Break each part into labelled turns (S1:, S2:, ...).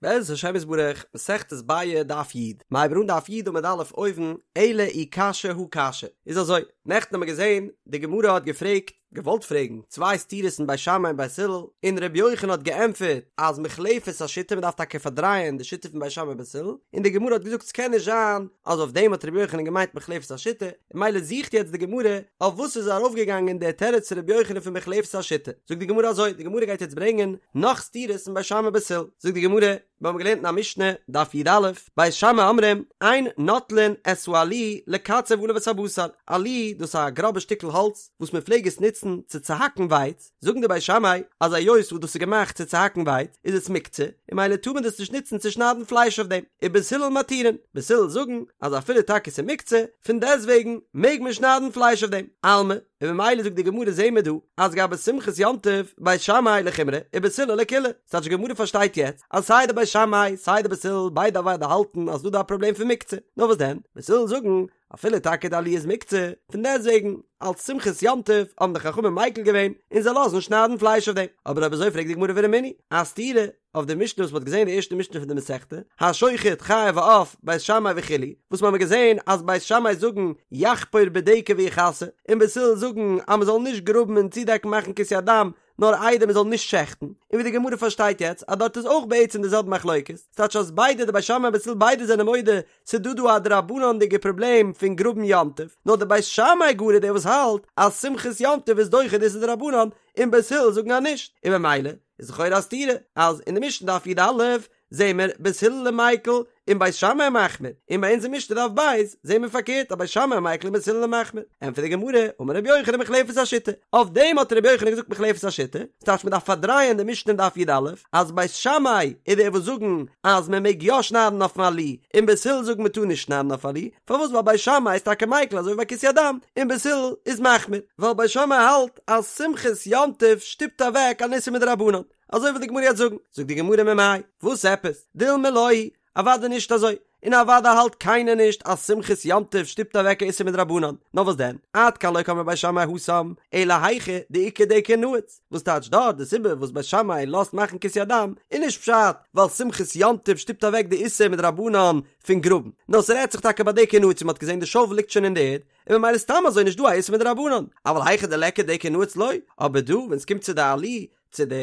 S1: בעזרת השם יתברך, מסכת ביעא דף י', מ'הייבן אן דף י' עמוד א' אויבן, אלא אי קשיא הא קשיא, איז אזוי, נעכטן האבן מיר געזען, די גמרא האט געפרעגט, געוואלט פרעגן, צוויי סתירות אין בית שמאי און בית הלל, און ר' יוחנן האט געענטפערט אז מוחלפת השיטה מ'דארף טאקע פארדרייען די שיטה פון בית שמאי און בית הלל, און די גמרא האט געזאגט ס'קען נישט זיין אז אויף דעם האט ר' יוחנן געמיינט מוחלפת השיטה, ממילא זוכט יעצט די גמרא אויף וואס איז ארויפגעגאנגען דער תירוץ פון רבי יוחנן פון מוחלפת השיטה, זאגט די גמרא אזוי, די גמרא גייט יעצט ברענגען נאך סתירות אין בית שמאי בית הלל, זאגט די גמרא, מיר האבן געלערנט אין א משנה, דף י"א, בית שמאי אומרים, אין נוטלין את העלי לקצב עליו את הבשר, עלי דאס איז א גראבע שטיקל האלץ וואס מען פלעג עס נוצן צו צוהאקן ווייץ, זאגן די בית שמאי אז היות וואס דאס איז געמאכט צו צוהאקן ווייץ איז עס מוקצה און ממילא טאר מען דאס נישט נוצן צו שניידן פלייש אויף דעם, ובית הלל מתירין, בית הלל זאגן אז אפילו טאקע ס'איז מוקצה, פון דעסטוועגן מעג מען שניידן פלייש אויף דעם, אלמא, און ממילא זאגט די גמרא זעהן מיר דא אז גבי שמחת יום טוב בית שמאי לחומרא ובית הלל לקולא, ס'טייטש די גמרא פארשטייט יעצט אז סיי די בית שמאי סיי די בית הלל ביידע אוודאי האלטן אז ס'דא דא א פראבלעם פון מוקצה, נאר וואס דען, בית הלל זאגן אפילו טאקע די עלי איז מוקצה, פון דעסטוועגן, אלס שמחת יום טוב האבן די חכמים מיקל געווען און זיי לאזן שניידן פלייש אויף דעם. אבער אויב אזוי פרעגט די גמרא ורמינהי, א סתירה אויף די משנה וואס מ'האט געזען די ערשטע משנה פון די מסכתא, השוחט חיה ועוף, בית שמאי וכו', וואס מ'האמיר געזען אז בית שמאי זאגן יחפור בדקר ויכסה, און בית הלל זאגן אז מ'זאל נישט גראבן און צודעקן מאכן כיסוי הדם, נאר איידער מ'זאל נישט שעכטן, און ווי די גמרא פארשטייט יעצט אז דארט איז אויך בעצם די זעלבע מחלוקת, ס'טייטש אז ביידע די בית שמאי און בית הלל ביידע זענען מודה ס'דא דא א דרבנן'דיגע פראבלעם פון גראבן יום טוב, נאר די בית שמאי גאר איז דער וואס האלט אז שמחת יום טוב איז דוחה די איסור דרבנן, און בית הלל זאגן אז נישט, און ממילא איז לכאורה א סתירה אז אין די משנה דף י"א זעהן מיר בית הלל מיקל און בית שמאי מחמיר, און ביי אונז אין משנה דף ב' זעהן מיר פארקערט אז בית שמאי מיקל און בית הלל מחמיר, ענטפערט די גמרא, אמר רבי יוחנן מוחלפת השיטה, אויף דעם האט רבי יוחנן געזאגט מוחלפת השיטה, ס'טייטש מ'דארף פארדרייען די משנה אין דף י"א, אז בית שמאי איז דער וואס זאגן אז מען מעג יא שניידן אויפן עלי, און בית הלל זאגן מען טאר נישט שניידן אויף עלי, פארוואס ווייל בית שמאי איז טאקע מיקל אזוי ווי ביי כיסוי הדם, און בית הלל איז מחמיר, ווייל בית שמאי האלט אז שמחת יום טוב שטופט אוועק אן איסור מדרבנן, אזוי וויל די גמרא יעצט זאגן, זאגט די גמרא ממאי, וואס עפעס, דילמא לא היא, אוודאי נישט אזוי, און אוודאי האלט קיינער נישט אז שמחת יום טוב שטופט אוועק א איסור מדרבנן, נאר וואס דען, עד כאן לא קאמרי בית שמאי התם, אלא היכא דאיכא דקר נעוץ, וואס טייטש דארט די סיבה וואס בית שמאי לאזט מאכן כיסוי הדם איז נישט פשט ווייל שמחת יום טוב שטופט אוועק די איסור מדרבנן פון גראבן, נאר ס'רעדט זיך טאקע ביי דקר נעוץ ווי מ'האט געזען די שאוול ליגט שוין אין די ערד, און ממילא סתם אזוי נישט דא א איסור מדרבנן, אבל היכא דליכא דקר נעוץ לא, אבער דא ווען ס'קומט צו די עלי צו די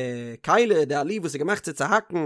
S1: כלי די עלי וואס איז געמאכט צו צוהאקן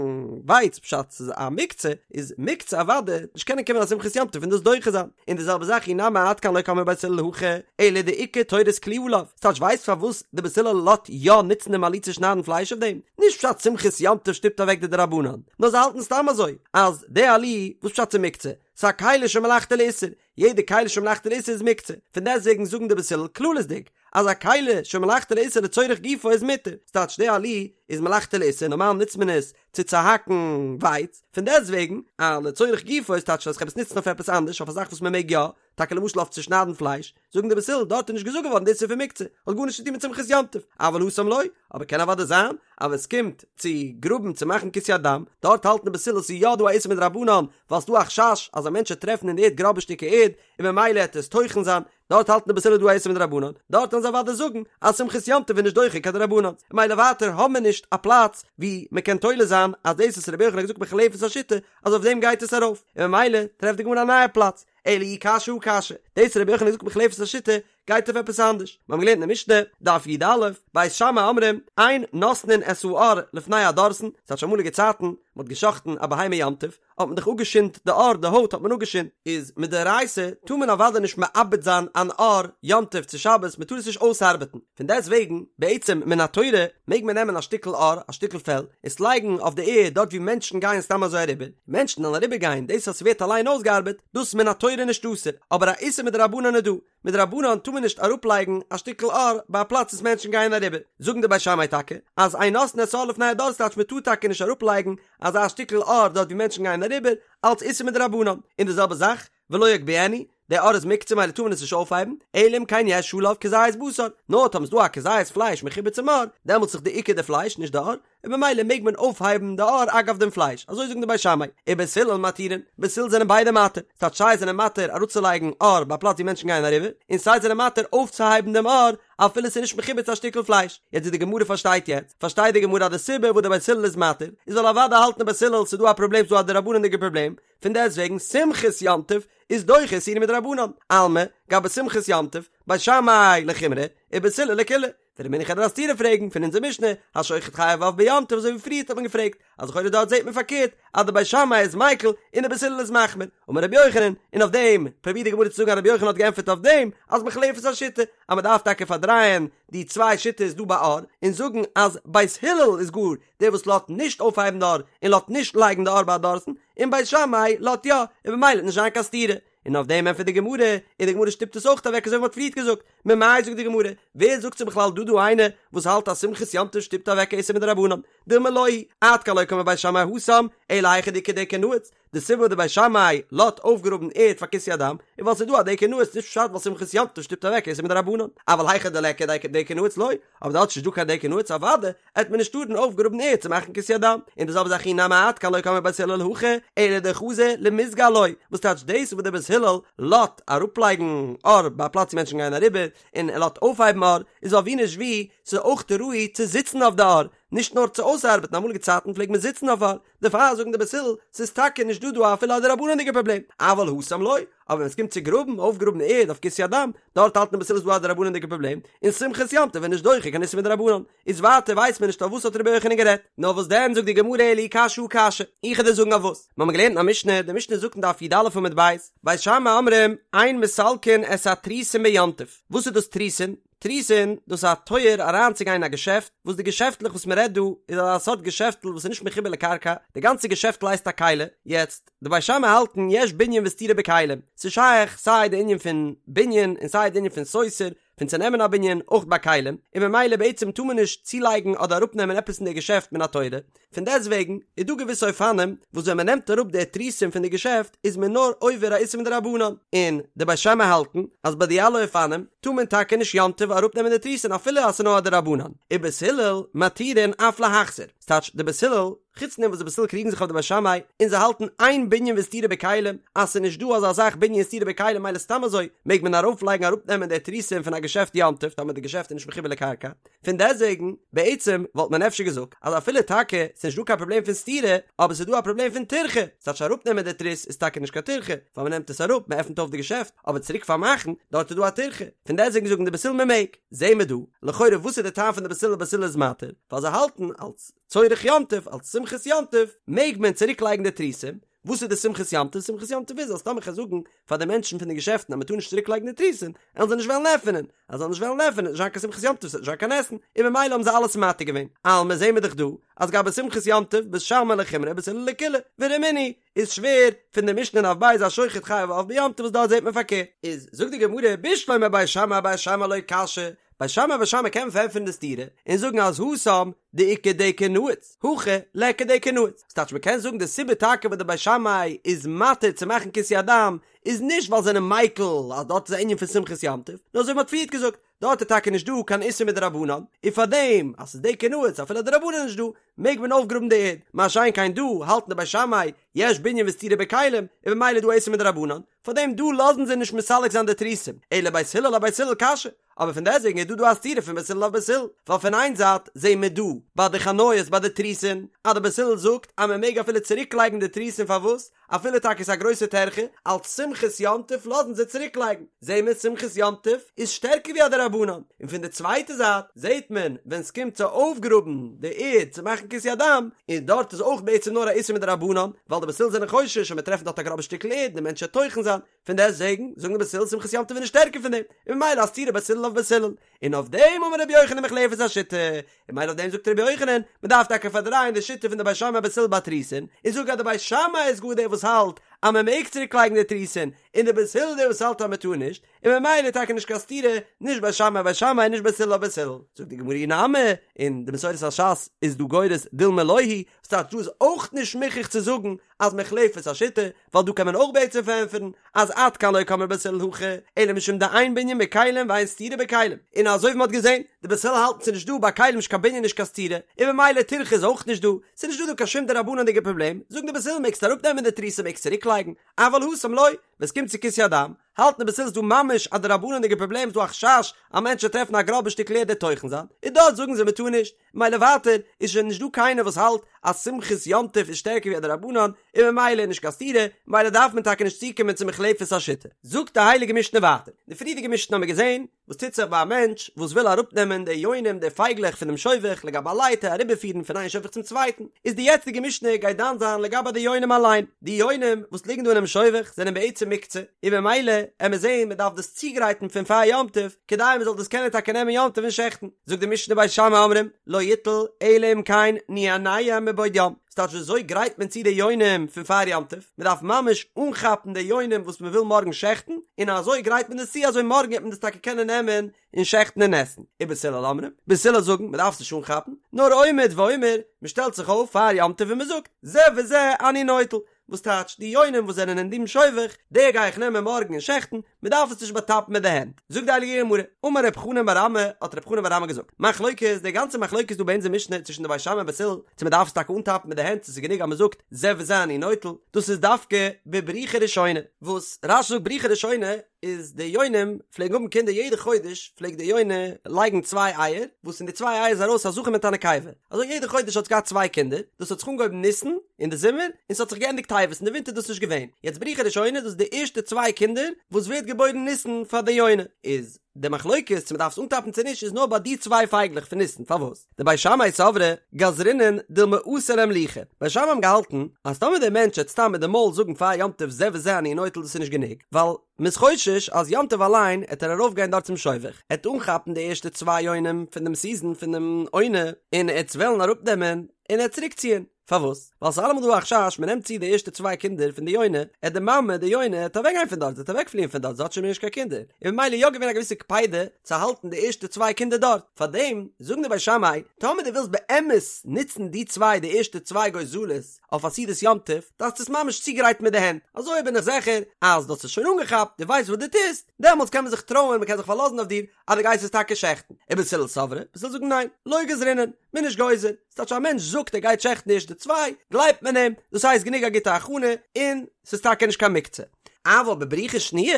S1: ווייץ פשט ס'איז א מוקצה איז מוקצה אוודאי נישט קענען קומען א שמחת יום טוב און דאס דוחה זיין און די זעלבע זאך אי נמי עד כאן לא קאמרי בית הלל הכא אלא דאיכא תורת כלי עליו ס'טייטש ווייסט פארוואס די בית הלל לאזט יא נוצן דעם עלי צו שניידן פלייש אויף דעם נישט פשט שמחת יום טוב שטופט אוועק די דרבנן נאר זיי האלטן סתם אזוי אז די עלי וואס פשט ס'איז מוקצה ס'איז א כלי שמלאכתו לאיסור יעדע כלי שמלאכתו לאיסור איז מוקצה פון דעסטוועגן זאגן די בית הלל כללית'דיג אז א כלי שמלאכתו לאיסור לצורך גופו איז מותר, ס'טייטש די עלי איז מלאכתו לאיסור, נארמאל נוצט מען עס צו צוהאקן ווייץ, פון דעסטוועגן א לצורך גופו איז טייטש אז כ'האב עס נוצן אויף עפעס אנדערש אויף א זאך וואס מ'מעג יא, טאקע למשל אויף צו שניידן פלייש, זאגן די בית הלל דארט איז נישט געזאגט געווארן די איסור פון מוקצה, האט גארנישט צו טון מיט שמחת יום טוב, אבל התם לא, אבער קען אוודאי זיין אז ווען ס'קומט צו גראבן צו מאכן כיסוי הדם, דארט האלטן די בית הלל ס'איז יא דא א איסור מדרבנן, ווייל ס'דא א חשש אז א מענטש וועט טרעפן אין די ערד גראבע שטיקער ערד, און ממילא העט עס טוחן זיין, דארט האלטן די בית הלל דא א איסור מדרבנן, דארט וועלן זיי אוודאי זאגן אז שמחת יום טוב איז נישט דוחה קיין דרבנן, ממילא ווייטער האבן מיר נישט א פלאץ ווי מען קען תולה זיין אז דאס וואס רבי יוחנן האט געזאגט מוחלפת השיטה אז אויף דעם גייט עס ארויף, און ממילא טרעפט די גמרא א נייע פלאץ, אלא אי קשיא הא קשיא, דאס וואס רבי יוחנן האט געזאגט מוחלפת השיטה גייט אויף עפעס אנדערש, מיר האבן געלערנט אין די משנה, דף י"א, בית שמאי אומרים, אין נותנין את העור לפני הדורסן, ס'טייטש אמאליגע צייטן, מען האט גע'שחט'ן א בהמה יום טוב, האט מען דאך אפגעשינדט די עור, די הויט האט מען אפגעשינדט, איז מדאורייתא טאר מען אוודאי נישט מעבד זיין אן עור יום טוב צו שבת, מען טאר עס נישט אויסארבעטן, פון דעסט וועגן, בעצם מן התורה מעג מען נעמען א שטיקל עור, א שטיקל פעל, עס לייגן אויף די ערד דארט ווי מענטשן גייען סתם אזוי אריבער, מענטשן וועלן אריבער גיין, דאס אז ס'ווערט אליין אויסגעארבעט, דאס מן התורה נישט אסור, אבער א איסור מדרבנן איז דא, מדרבנן טאר מען נישט אראפלייגן א שטיקל עור ביי א פלאץ וואס מענטשן גייען אריבער, זאגן די בית שמאי טאקע אז אין נותנין את העור לפני הדורסן טייטש מען טאר טאקע נישט אראפלייגן אזא שטיקל עור דארט ווי מענטשן גייען אריבער, אלץ איסור מדרבנן, און די זעלבע זאך ולא יגביהנו, די עור איז מוקצה ממילא טאר מען עס נישט אויפהייבן, אלא אם כן יש עליו כזית בשר, נאר טאמער ס'דא א כזית פלייש מחובר צום עור, דעמאלטס איז דאך די עיקר די פלייש נישט די עור, און ממילא מעג מען אויפהייבן די עור אגב דעם פלייש, אזוי זאגן די בית שמאי, ובית הלל מתירין, בית הלל זענען ביידע מתיר, ס'טייטש סיי זענען מתיר אראפצולייגן עור ביי א פלאץ ווי מענטשן גייען אריבער, און סיי זענען מתיר אויפצוהייבן דעם עור. אפילו ס'איז נישט מחובר צו א שטיקל פלייש. יעצט ווי די גמרא פארשטייט יעצט, פארשטייט די גמרא אז די סיבה וואס די בית הלל איז מתיר, איז ווייל אוודאי האלטן די בית הלל ס'איז דא א פראבלעם ס'איז דא א דרבנן'דיגע פראבלעם, פון דעסטוועגן שמחת יום טוב איז דוחה איסורא מדרבנן, אלמא, גבי שמחת יום טוב, בית שמאי לחומרא, ובית הלל לקולא. ורמינהו כ'וועל דיר א סתירה פרעגן פון אונזער משנה, השוחט חייב עוף ביום טוב אזוי ווי פריערט האט מען געפרעגט, אז לכאורה דארט זעט מען פארקערט אז די בית שמאי איז מיקל און די בית הלל איז מחמיר, אמר רבי יוחנן, און אויף דעם פרובירט די גמרא צו זאגן אז רבי יוחנן האט געענטפערט אויף דעם אז מוחלפת השיטה, אז מען דארף טאקע פארדרייען די צוויי שיטות דא ביי עור און זאגן אז בית הלל איז גאר דער וואס לאזט נישט אויפהייבן די עור און לאזט נישט לייגן די עור ביי א דורסן, און בית שמאי לאזט יא, און במילא וועט נישט זיין קיין סתירה. און אויף דעם ענטפערט די גמרא, און די גמרא שטופט עס אויך אוועק אזוי ווי מ'האט פריערט געזאגט, ממאי זאגט די גמרא, ווער זאגט ס'איז בכלל דא דא איינער וואס האלט אז שמחת יום טוב שטופט אוועק א איסור מדרבנן, דילמא לא היא, עד כאן לא קאמרי בית שמאי התם, אלא היכא דאיכא דקר נעוץ, די סיבה וואס די בית שמאי לאזט אויפגראבן ערד פאר כיסוי הדם, איז ווייל ס'איז דא א דקר נעוץ, נישט פשט ווייל שמחת יום טוב שטופט אוועק איסור מדרבנן, אבל היכא דליכא דקר נעוץ לא, אבער דארט איז נישט דא קיין דקר נעוץ אוודאי עט מען נישט טארן אויפגראבן ערד צו מאכן כיסוי הדם, און די זעלבע זאך אי נמי עד כאן לא קאמרי בית הלל הכא, אלא דחזי למיזגא עילויה, וואס טייטש דאס וואס דער בית הלל לאזט אראפלייגן עור ביי א פלאץ ווי מענטשן גייען אריבער, און ער לאזט אויפהייבן עור, איז ווייל ווי נישט ווי, ס'איז אויך ראוי צו זיצן אויף די עור, נישט נאר צו אויסארבעטן, אמאליגע צייטן פלעגט מען זיצן אויף עור, דערפאר זאגן די בית הלל, ס'איז טאקע נישט דא דא אפילו א דרבנן'דיגע פראבלעם, אבל התם לא, אבער ווען ס'קומט צו גראבן, אויפגראבן ערד אויף כיסוי הדם, דארט האלטן די בית הלל איז דא א דרבנן'דיגע פראבלעם, און שמחת יום טוב איז נישט דוחה קיין איסור מדרבנן, איז ווייטער ווייסט מען נישט אויף וואס האט רבי יוחנן גערעדט, נאר וואס דען זאגט די גמרא אלא אי קשיא הא קשיא, איך וועל דיר זאגן אויף וואס, מיר האבן געלערנט אין א משנה, די משנה זאגט אין דף י"א עמוד ב', בית שמאי אומרים, אין מסלקין את התריסין ביום טוב, וואס איז דאס תריסין? תריסין, דאס איז א טויער אריינצוגיין אין א געשעפט, וואס די געשעפטלעך וואס מען רעדט דא איז אזא סארט געשעפטל וואס איז נישט מחובר לקרקע, די גאנצע געשעפטל הייסט א כלי, יעצט, די בית שמאי האלטן יש בנין וסתירה בכלים, ס'איז שייך סיי די ענין פון בנין און סיי די ענין פון סותר, פון צונעמען א בנין, אויך ביי כלים, און ממילא בעצם טאר מען נישט צולייגן אדער אראפנעמען עפעס אין די געשעפט מן התורה, פון דעסטוועגן איז דא געוויסע אופנים וואס ווען מען נעמט אראפ די תריסין פון די געשעפט איז מען נאר עובר א איסור מדרבנן, און די בית שמאי האלטן אז ביי די אלע אופנים טאר מען טאקע נישט יום טוב אראפנעמען די תריסין אפילו אז ס'איז נאר א דרבנן, ובית הלל מתירין אף להחזיר, ס'טייטש די בית הלל, חוץ פון דעם וואס די בית הלל קריגן זיך אויף די בית שמאי און זיי האלטן אין בנין וסתירה בכלים אז ס'איז נישט דא אזא זאך בנין וסתירה בכלים מילא סתם אזוי מעג מען ארויפלייגן אראפנעמען די תריסין פון א געשעפט יום טוב טאמער די געשעפט איז נישט מחובר לקרקע, פון דעסוועגן, בעצם וואלט מען אפשר געזאגט אז אפילו טאקע ס'נישט דא קיין פראבלעם פון סתירה, אבער ס'איז דא א פראבלעם פון טירחה, ס'טייטש אראפנעמען די תריס איז טאקע נישט קיין טירחה, ווייל מ'נעמט עס אראפ, מ'עפנט אויף די געשעפט, אבער צוריק פארמאכן, דארט איז דא א טירחה, פון דעסוועגן זאגן די בית הלל מ'מעג. זעהן מיר דא, לכאורה וואס איז די טעם פון די בית הלל בית הלל איז מתיר, ווייל זיי האלטן אלס צורך יום טוב, אלס שמחת יום טוב, מעג מען צוריק לייגן די תריסים, וואס איז די שמחת יום טוב? שמחת יום טוב איז אז טאמער כ'גיי זאגן פאר די מענטשן פון די געשעפטן אז מ'טאר נישט צוריק לייגן די תריסין, עלן זיי נישט וועלן עפענען, אז זיי זאלן נישט וועלן עפענען איז נישט זיין קיין שמחת יום טוב, ס'וועט נישט זיין קיין עסן, און ממילא האבן זיי אלעס מתיר געווען. אלמא זעהן מיר דאך דא אז גבי שמחת יום טוב בית שמאי לחומרא ובית הלל לקולא, ורמינהו איז שווער פון די משנה אין דף ב' השוחט חייב עוף ביום טוב וואס דארט זעהט מען פארקערט. איז זאגט די גמרא בשלמא בית שמאי אבית שמאי לא קשיא, בית שמאי אבית שמאי קען מען פארענטפערן די סתירה און זאגן אז התם דאיכא דקר נעוץ, הכא ליכא דקר נעוץ, ס'טייטש מ'קען זאגן די סיבה טאקע וואס די בית שמאי איז מתיר צו מאכן כיסוי הדם איז נישט ווייל זיי זענען מיקל אז דארט איז א ענין פון שמחת יום טוב, נאר אזוי ווי מ'האט פריערט געזאגט, דארט איז טאקע נישט דא קיין איסור מדרבנן, און פארדעם אז ס'איז דקר נעוץ אפילו א דרבנן איז נישט דא, מעג מען אויפגראבן די ערד, מה שאין כן דא האלטן די בית שמאי יש בנין וסתירה בכלים, און ממילא איז דא איסור מדרבנן, פארדעם דא לאזן זיי נישט מסלק זיין די תריסים, אלא בית הלל אבית הלל קשיא, אבער פון דעסוועגן איז דא דא א סתירה פון בית הלל אויף בית הלל, ווייל פון איין זייט זעהן מיר דא ביי די חנויות ביי די תריסין אז די בית הלל זאגט אז מען מעג אפילו צוריק לייגן די תריסין פארוואס אפילו טאקע איז א גרויסע טרחה אלץ שמחת יום טוב לאזן זיי צוריק לייגן, זעהן מיר שמחת יום טוב איז שטערקער ווי א דרבנן, און פון די צווייטע זייט זעהט מען ווען סקומט צו אויפגראבן די ערד צו מאכן כיסוי הדם, און דארט איז אויך בעצם נאר א איסור מדרבנן, ווייל די בית הלל זענען חושש אז מ'וועט טרעפן דארט א גראבע שטיקל ערד און די מענטש וועט טוחן זיין, פון דעסטוועגן זאגן די בית הלל שמחת יום טוב איז נישט שטערקער פון דעם, און ממילא א סתירה בית הלל אויף בית הלל, און אויף דעם אמר רבי יוחנן מוחלפת השיטה, און ממילא אויף דעם זאגט רבי יוחנן, מען דארף טאקע פארדרייען די שיטה פון די בית שמאי בית הלל ביי תריסין, און זאגן אז די בית שמאי איז גאר דער וואס האלט אז מען מעג צוריק לייגן די תריסין, און די בית הלל דער וואס האלט אז מען טאר נישט, און ממילא טאקע נישט קיין סתירה, נישט בית שמאי בית שמאי נישט בית הלל בית הלל. זאגט די גמרא אי נמי, און די מסורת הש"ס איז דא גורס דילמא לא היא, וואס טייטש דא איז אויך נישט מוכרח צו זאגן אז מוחלפת השיטה, ווייל דא קען מען אויך בעצם פארענטפערן אז עד כאן לא קאמרי בית הלל הכא, אלא משום דאין בנין בכלים ואין סתירה בכלים, און אזוי ווי מען האט געזען, די בית הלל האלטן ס'איז נישט דא ביי כלים נישט קיין בנין נישט קיין סתירה, און ממילא טירחא איז אויך נישט דא, ס'איז נישט דא דא קיין שום דרבנן'דיגע פראבלעם, זאגן די בית הלל מעגסט אראפנעמען די תריסין מעגסט צוריקלייגן, אבל התם לא, ווען ס'קומט צו כיסוי הדם, האלטן די בית הלל ס'איז דא ממש א דרבנן'דיגע פראבלעם, ס'איז דא א חשש א מענטש וועט טרעפן א גראבע שטיקל ערד ער'ט טוחן זיין, און דארט זאגן זיי מ'טאר נישט, ממילא ווייטער איז שוין נישט דא קיינער וואס האלט אז שמחת יום טוב איז שטערקער ווי א דרבנן, און ממילא איז נישט קיין סתירה, ממילא דארף מען טאקע נישט צוקומען צו מוחלפת השיטה. זאגט די הייליגע משנה ווייטער, די פריערדיגע משנה האמיר געזען וואס טוט זיך ביי א מענטש וואס וויל אראפנעמען די יונים די פייגלעך פונעם שובך לגבי א לייטער אריבערפירן פון איין שובך צום צווייטן, איז די יעצטיגע משנה גייט דן זיין לגבי די יונים אליין, די יונים וואס ליגן דא אינעם שובך זענען בעצם מוקצה, און ממילא עמיר זען מען דארף דאס צוגרייטן פון פאר יום טוב כדי מען זאל דאס קענען טאקע נעמען יום טוב און שעכטן, זאגט די משנה בית שמאי אומרים לא יטול אלא אם כן ניענע מבעוד יום, ס'טייטש ווי אזוי גרייט מען צו די יונים פון פאר יום טוב? מען דארף ממש אנכאפן די יונים וואס מען וויל מארגן שעכטן, און אזוי גרייט מען דאס צו אזוי מארגן וועט מען דאס טאקע קענען נעמען און שעכטן און עסן. ובית הלל אומרים, בית הלל זאגן מען דארף עס נישט אנכאפן, נאר עומד ואומר, מען שטעלט זיך אויף פאר יום טוב און מען זאגט, זה וזה אני נוטל, וואס טייטש די יונים וואס זענען אין דעם שובך, די גיי איך נעמען מארגן און שעכטן, מען דארף עס נישט באטאפן מיט די הענט. זאגט די הייליגע גמרא, אמר רב חנן בר אמי, האט רב חנן בר אמי געזאגט, מחלוקת, די גאנצע מחלוקת דא ביי אונזער משנה צווישן די בית שמאי און בית הלל, צו מען דארף עס טאקע אנטאפן מיט די הענט צו ס'איז גענוג אז מען זאגט זה וזה אני נוטל, דאס איז דווקא בבריחה ראשונה, וואס רש"י זאגט בריחה ראשונה איז די יונים פלעגן האבן קינדער יעדע חודש פלעגט די יונה לייגן צוויי אייער, וואס אין די צוויי אייער איז ארויס א זכר מיט א נקבה, אזוי יעדע חודש האט עס געהאט צוויי קינדער, דאס האט זיך אנגעהויבן ניסן אין די זומער, און ס'האט זיך געענדיגט טבת, אין די ווינטער איז דאס נישט געווען, יעצט בריחה ראשונה דאס איז די ערשטע צוויי קינדער וואס ווערט געבוירן ניסן פאר די יונה, איז די מחלוקת צו מ'דארף עס אנטאפן צו נישט איז נאר ביי די צוויי פייגלעך פון ניסן, פארוואס? דבית שמאי סברי גזרינן דילמא אתי לאימלוכי, בית שמאי האבן געהאלטן אז טאמער דער מענטש וועט סתם מיט די מויל זאגן פאר יום טוב זה וזה אני נוטל דאס איז נישט גענוג, ווייל מ'איז חושש אז יום טוב אליין עט ער ארויף גיין דארט צום שובך, עט אנכאפן די ערשטע צוויי יונים פון דעם סיזען פון דעם עונה, און עט עס וועלן אראפ נעמען און עט צוריק ציען, פארוואס? ווייל ס'איז אלעמאל דא א חשש מ'נעמט צו די ערשטע צוויי קינדער פון די יונה, עט די מאמע די יונה עט אוועק גיין פון דארט, זי עט אוועק פליען פון דארט, זי האט שוין מער נישט קיין קינדער, און ממילא איז יא געווען א געוויסע קפידה צו האלטן די ערשטע צוויי קינדער דארט, פארדעם זאגן די בית שמאי, טאמער דו ווילסט באמת נוצן די צוויי די ערשטע צוויי גוזלות, אויף א סעודת יום טוב, דארפסטו עס ממש צוגרייטן מיט די הענט, אזוי בין איך זיכער אז דו האסט עס שוין אנגעכאפט, דו ווייסט וואס דו טוסט, דעמאלטס קען מען זיך טרויען, מען קען זיך פארלאזן אויף דיר אז דו גייסט עס טאקע שעכטן. ובית הלל סברי, בית הלל זאגן ניין, לא גזרינן, מען איז נישט גוזר, ס'טייטש א מענטש זאגט ער גייט שעכטן די ערשטע צוויי, גלייבט מען אים, דאס הייסט גענוג א גוטע הכנה, און ס'איז טאקע נישט קיין מוקצה. אבל בבריחה שניה,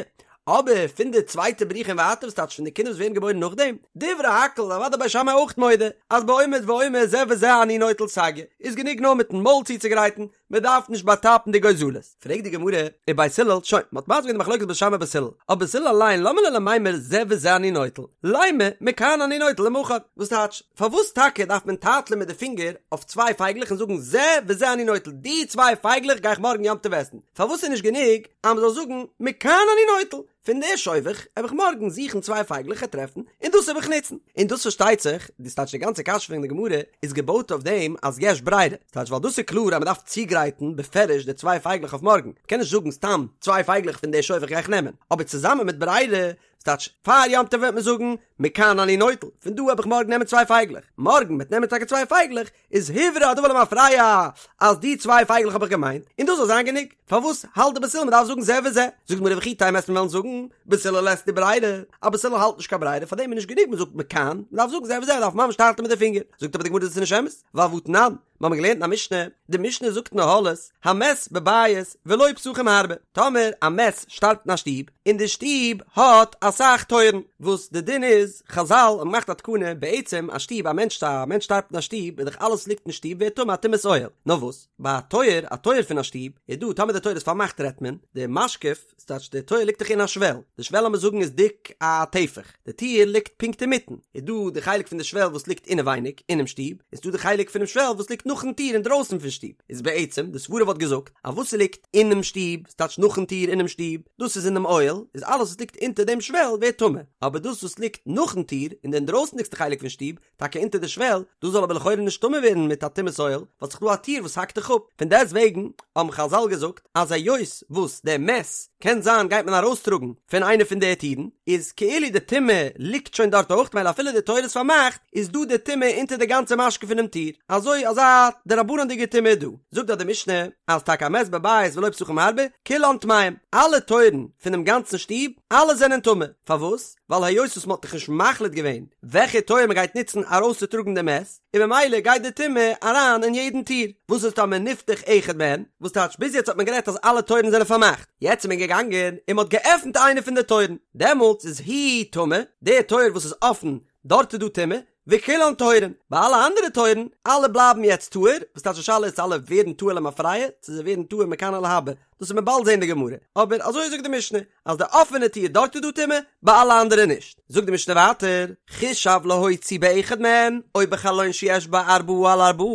S1: אבער פון די צווייטע בריחה און ווייטער וואס טייטש פון די קינדער וואס ווערן געבוירן נאכדעם, דברי הכל אוודאי בית שמאי אויך מודה אז בעומד ואומר זה וזה אני נוטל סגיא, איז גענוג נאר מיטן מויל צוצוגרייטן, מען דארף נישט באטאפן די גוזלות. פרעגט די גמרא, ובית הלל, שוין, מען האט מסביר געווען די מחלוקת בית שמאי בית הלל, אבער בית הלל אליין למה ליה למימר זה וזה אני נוטל, לימא מכאן אני נוטל למחר, וואס טייטש, פארוואס טאקע דארף מען טייטלען מיט די פינגער אויף צוויי פייגלעך און זאגן זה וזה אני נוטל, די צוויי פייגלעך גיי איך מארגן יום טוב עסן, פארוואס איז נישט גענוג אז מען זאל זאגן מכאן אני נוטל, פון די שובך העב איך מארגן זוכן צוויי פייגלעך און טרעפן, און דאס העב איך נוצן. און דאס פארשטייט זיך, דאס טייטש די גאנצע קשיא פון די גמרא איז געבויט אויף דעם אז יש ברירה, ס'טייטש ווייל דאס איז קלאר אז מען דארף צוגרייטן בפירוש די צוויי פייגלעך אויף מארגן, מען קען נישט זאגן סתם צוויי פייגלעך פון די שובך גיי איך נעמען, אבער צוזאמען מיט ברירה, ס'טייטש פאר יום טוב וועט מען זאגן מכאן אני נוטל, פון דא העב איך מארגן נעמען צוויי פייגלעך, מארגן מ'עט נעמען טאקע צוויי פייגלעך, איז הוברר הדבר למפרע אז די צוויי פייגלעך האב איך געמיינט, און דאס זאל זיין גענוג. פארוואס האלט די בית הלל מ'דארף זאגן זה וזה? זאגט די גמרא וכי תימא וועסט מיר וועלן זאגן בית הלל לית להו ברירה, אז בית הלל האלט נישט קיין ברירה פארדעם איז נישט גענוג מ'זאגט מכאן, מ'דארף זאגן זה וזה מ'דארף ממש טייטלען מיט די פינגער. זאגט אבער די גמרא דאס איז נישט אמת, ווייל והתנן, מיר האבן געלערנט אין א משנה, די משנה זאגט אין אהלות, המת בבית ולו פתחים הרבה, טאמער א מת שטארבט אין א שטוב, און די שטוב האט אסאך טויערן, וואס די דין איז, חזל האבן געמאכט א תקנה, בעצם א שטוב, א מענטש א מענטש שטארבט אין א שטוב, איז דאך אלעס וואס ליגט אין שטוב ווערט טמא א טומאת אוהל, נאר וואס, ביי א טויער, א טויער פון א שטוב, איז דא, טאמער די טויער איז פארמאכט רעדט מען, די משקוף, ס'טייטש די טויער ליגט דאך אין א שוועל, די שוועל לאמיר זאגן איז דיק א טפח, די טיר ליגט פונקט אינמיטן, איז דא די חלק פון די שוועל וואס ליגט אינעווייניג אינעם שטוב, און ס'דא די חלק פונעם שוועל וואס ליגט נאכן טיר אינדרויסן פון שטוב, איז בעצם די סברה וואלט געזאגט אז וואס ס'ליגט אינעם שטוב, ס'טייטש נאכן טיר אינעם שטוב, דאס איז אינעם אוהל, איז אלעס וואס ליגט אונטער דעם שוועל ווערט טמא, אבער דאס וואס ליגט נאכן טיר אין די אינדרויסנדיגסטע חלק פון שטוב, טאקע אונטער די שוועל, דאס זאל אבער לכאורה נישט טמא ווערן מיט א טומאת אוהל, ווייל ס'איז דא א טיר וואס האקט דיך אפ, פון דעסט וועגן האבן חזל געזאגט אז היות וואס דער מת קען זיין גייט מען ארויסטראגן פון איינע פון די טירן, איז כאילו די טומאה ליגט שוין דארט אויך, מילא אפילו די טויער איז פארמאכט, איז דא די טומאה אונטער די גאנצע משקוף פונעם טיר, אזוי אזא. א דרבנן'דיגע טומאה איז דא. זאגט דארט די משנה אז טאקע א מת בבית ולו פתחים הרבה, כולן טמאים, אלע טויערן פונעם גאנצן שטוב, אלע זענען טמא, פארוואס? ווייל היות וואס מ'האט דאך נישט מחליט געווען וועלכע טויער מ'גייט נוצן ארויסצוטראגן די מת, און ממילא גייט די טומאה אריין אין יעדן טיר, וואס איז טאמער נפתח אחד מהן, וואס טייטש ביז יעצט האט מען גערעדט אז אלע טויערן זענען פארמאכט, יעצט איז מען געגאנגען און מ'האט געעפנט איינע פון די טויערן, דעמאלטס איז הוא טמא, די טויער וואס איז אפן, דארט איז דא טומאה, וכולן טהורין, ביי אלע אנדערע טויערן, אלע בלייבן יעצט טהור, וואס טייטש די שאלה איז צו אלע ווערן טהור למפרע, צו זיי ווערן טהור מכאן ולהבא, דאס וועט מען באלד זען אין די גמרא, אבער אזוי זאגט די משנה, אז די אפענע טיר דארט איז דא טומאה, ביי אלע אנדערע נישט. זאגט די משנה ווייטער, חישב להוציא באחד מהן, או בחלון שיש בו ארבעה על ארבעה,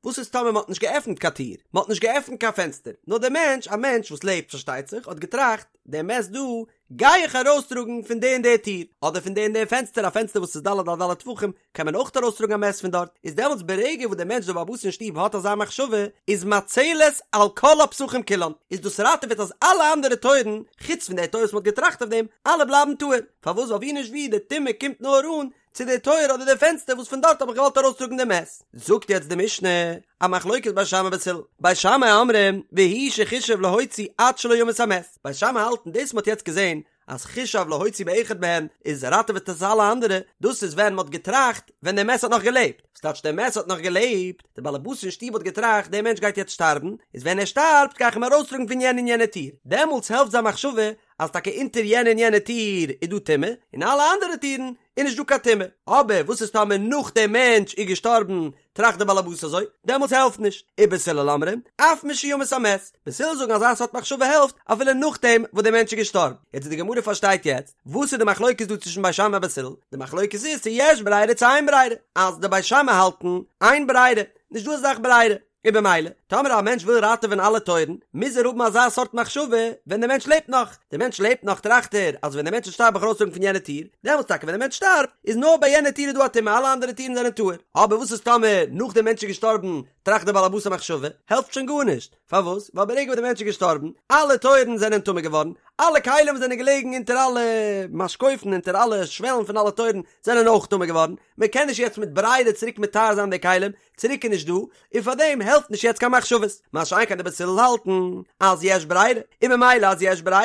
S1: וואס איז טאמער מען האט נישט געעפנט קיין טיר, מען האט נישט געעפנט קיין פענסטער, נאר דער מענטש, א מענטש וואס לעבט פארשטייט זיך, האט געטראכט, דער מת דא, גיי איך ארויסטראגן פון די און די טיר, אדער פון די און די פענסטער, א פענסטער וואס איז ד' על ד' טפחים, קען מען אויך ארויסטראגן א מת פון דארט, איז דעמאלטס ברגע וואס דער מענטש דער בעל הבית אין שטוב האט אזא מחשבה, איז מצלת על כל הפתחים כולן, איז דאס ראטעוועט אז אלע אנדערע טויערן, חוץ פון די טויער וואס מען האט געטראכט אויף דעם, אלע בלייבן טהור, פארוואס ווייל ווי נישט ווי די טומאה קומט נאר אן צו די טויער אדער די פענסטער וואס פון דארט האב איך געוואלט ארויסטראגן די מת. זאגט יעצט די משנה, א מחלוקת בית שמאי ובית הלל, בית שמאי אומרים, והוא שחישב להוציא עד שלא ימות המת, בית שמאי האלטן דאס מ'האט יעצט געזען אז חישב להוציא באחד מהן איז ראטעוועט עס אלע אנדערע, דאס איז ווען מ'האט געטראכט ווען דער מת האט נאך געלעבט, וואס טייטש דער מת האט נאך געלעבט? דער באלעבאס אין שטוב האט געטראכט דער מענטש גייט יעצט שטארבן, איז ווען ער שטארבט גיי איך אים ארויסטראגן פון יענע און יענע טיר, דעמאלטס העלפט זיין מחשבה אז טאקע אונטער יענע און יענע טיר איז דא טומאה, און אלע אנדערע טירן איז נישט דא קיין טומאה. אבער וואס איז טאמער נאך דער מענטש איז געשטארבן טראכט דער באלעבאס אזוי, דעמאלטס העלפט נישט. ובית הלל אומרים, אף משימות המת, בית הלל זאגן אזא סארט מחשבה העלפט אפילו נאכדעם וואס דער מענטש איז געשטארבן. יעצט די גמרא פארשטייט יעצט וואס איז די מחלוקת דא צווישן בית שמאי און בית הלל, די מחלוקת איז צו יש ברירה צו אין ברירה, אז די בית שמאי האלטן אין ברירה, נישט דא אזא זאך ברירה, און במילא, טאמער א מענטש וויל ראטעווען אלע טויערן, מוז ער האבן אזא סארט מחשבה ווען דער מענטש לעבט נאך. דער מענטש לעבט נאך טראכט ער אז ווען דער מענטש וועט שטארבן וועל איך ארויסטראגן פון יענע טיר, דעמאלטס טאקע ווען דער מענטש שטארבט, איז נאר ביי יענע טיר איז דא א טומאה אלע אנדערע טירן זענען טהור. אבער וואס איז טאמער נאך דער מענטש איז געשטארבן טראכט דער בעל הבית א מחשבה, העלפט שוין גארנישט. פארוואס? ווייל ברגע וואס דער מענטש איז געשטארבן, אלע טויערן זענען טמא געווארן, אלע כלים וואס זענען געלעגן אונטער אלע משקופים, אונטער אלע שוועלן פון אלע טויערן, זענען אויך טמא געווארן, מען קען נישט יעצט מיט ברירה צוריק מטהר זיין די כלים, צוריק איז נישט דא, און פאר דעם העלפט נישט יעצט קיין מחשבות, מה שאין כן די בית הלל האלטן אז יש ברירה, און ממילא אז יש ברירה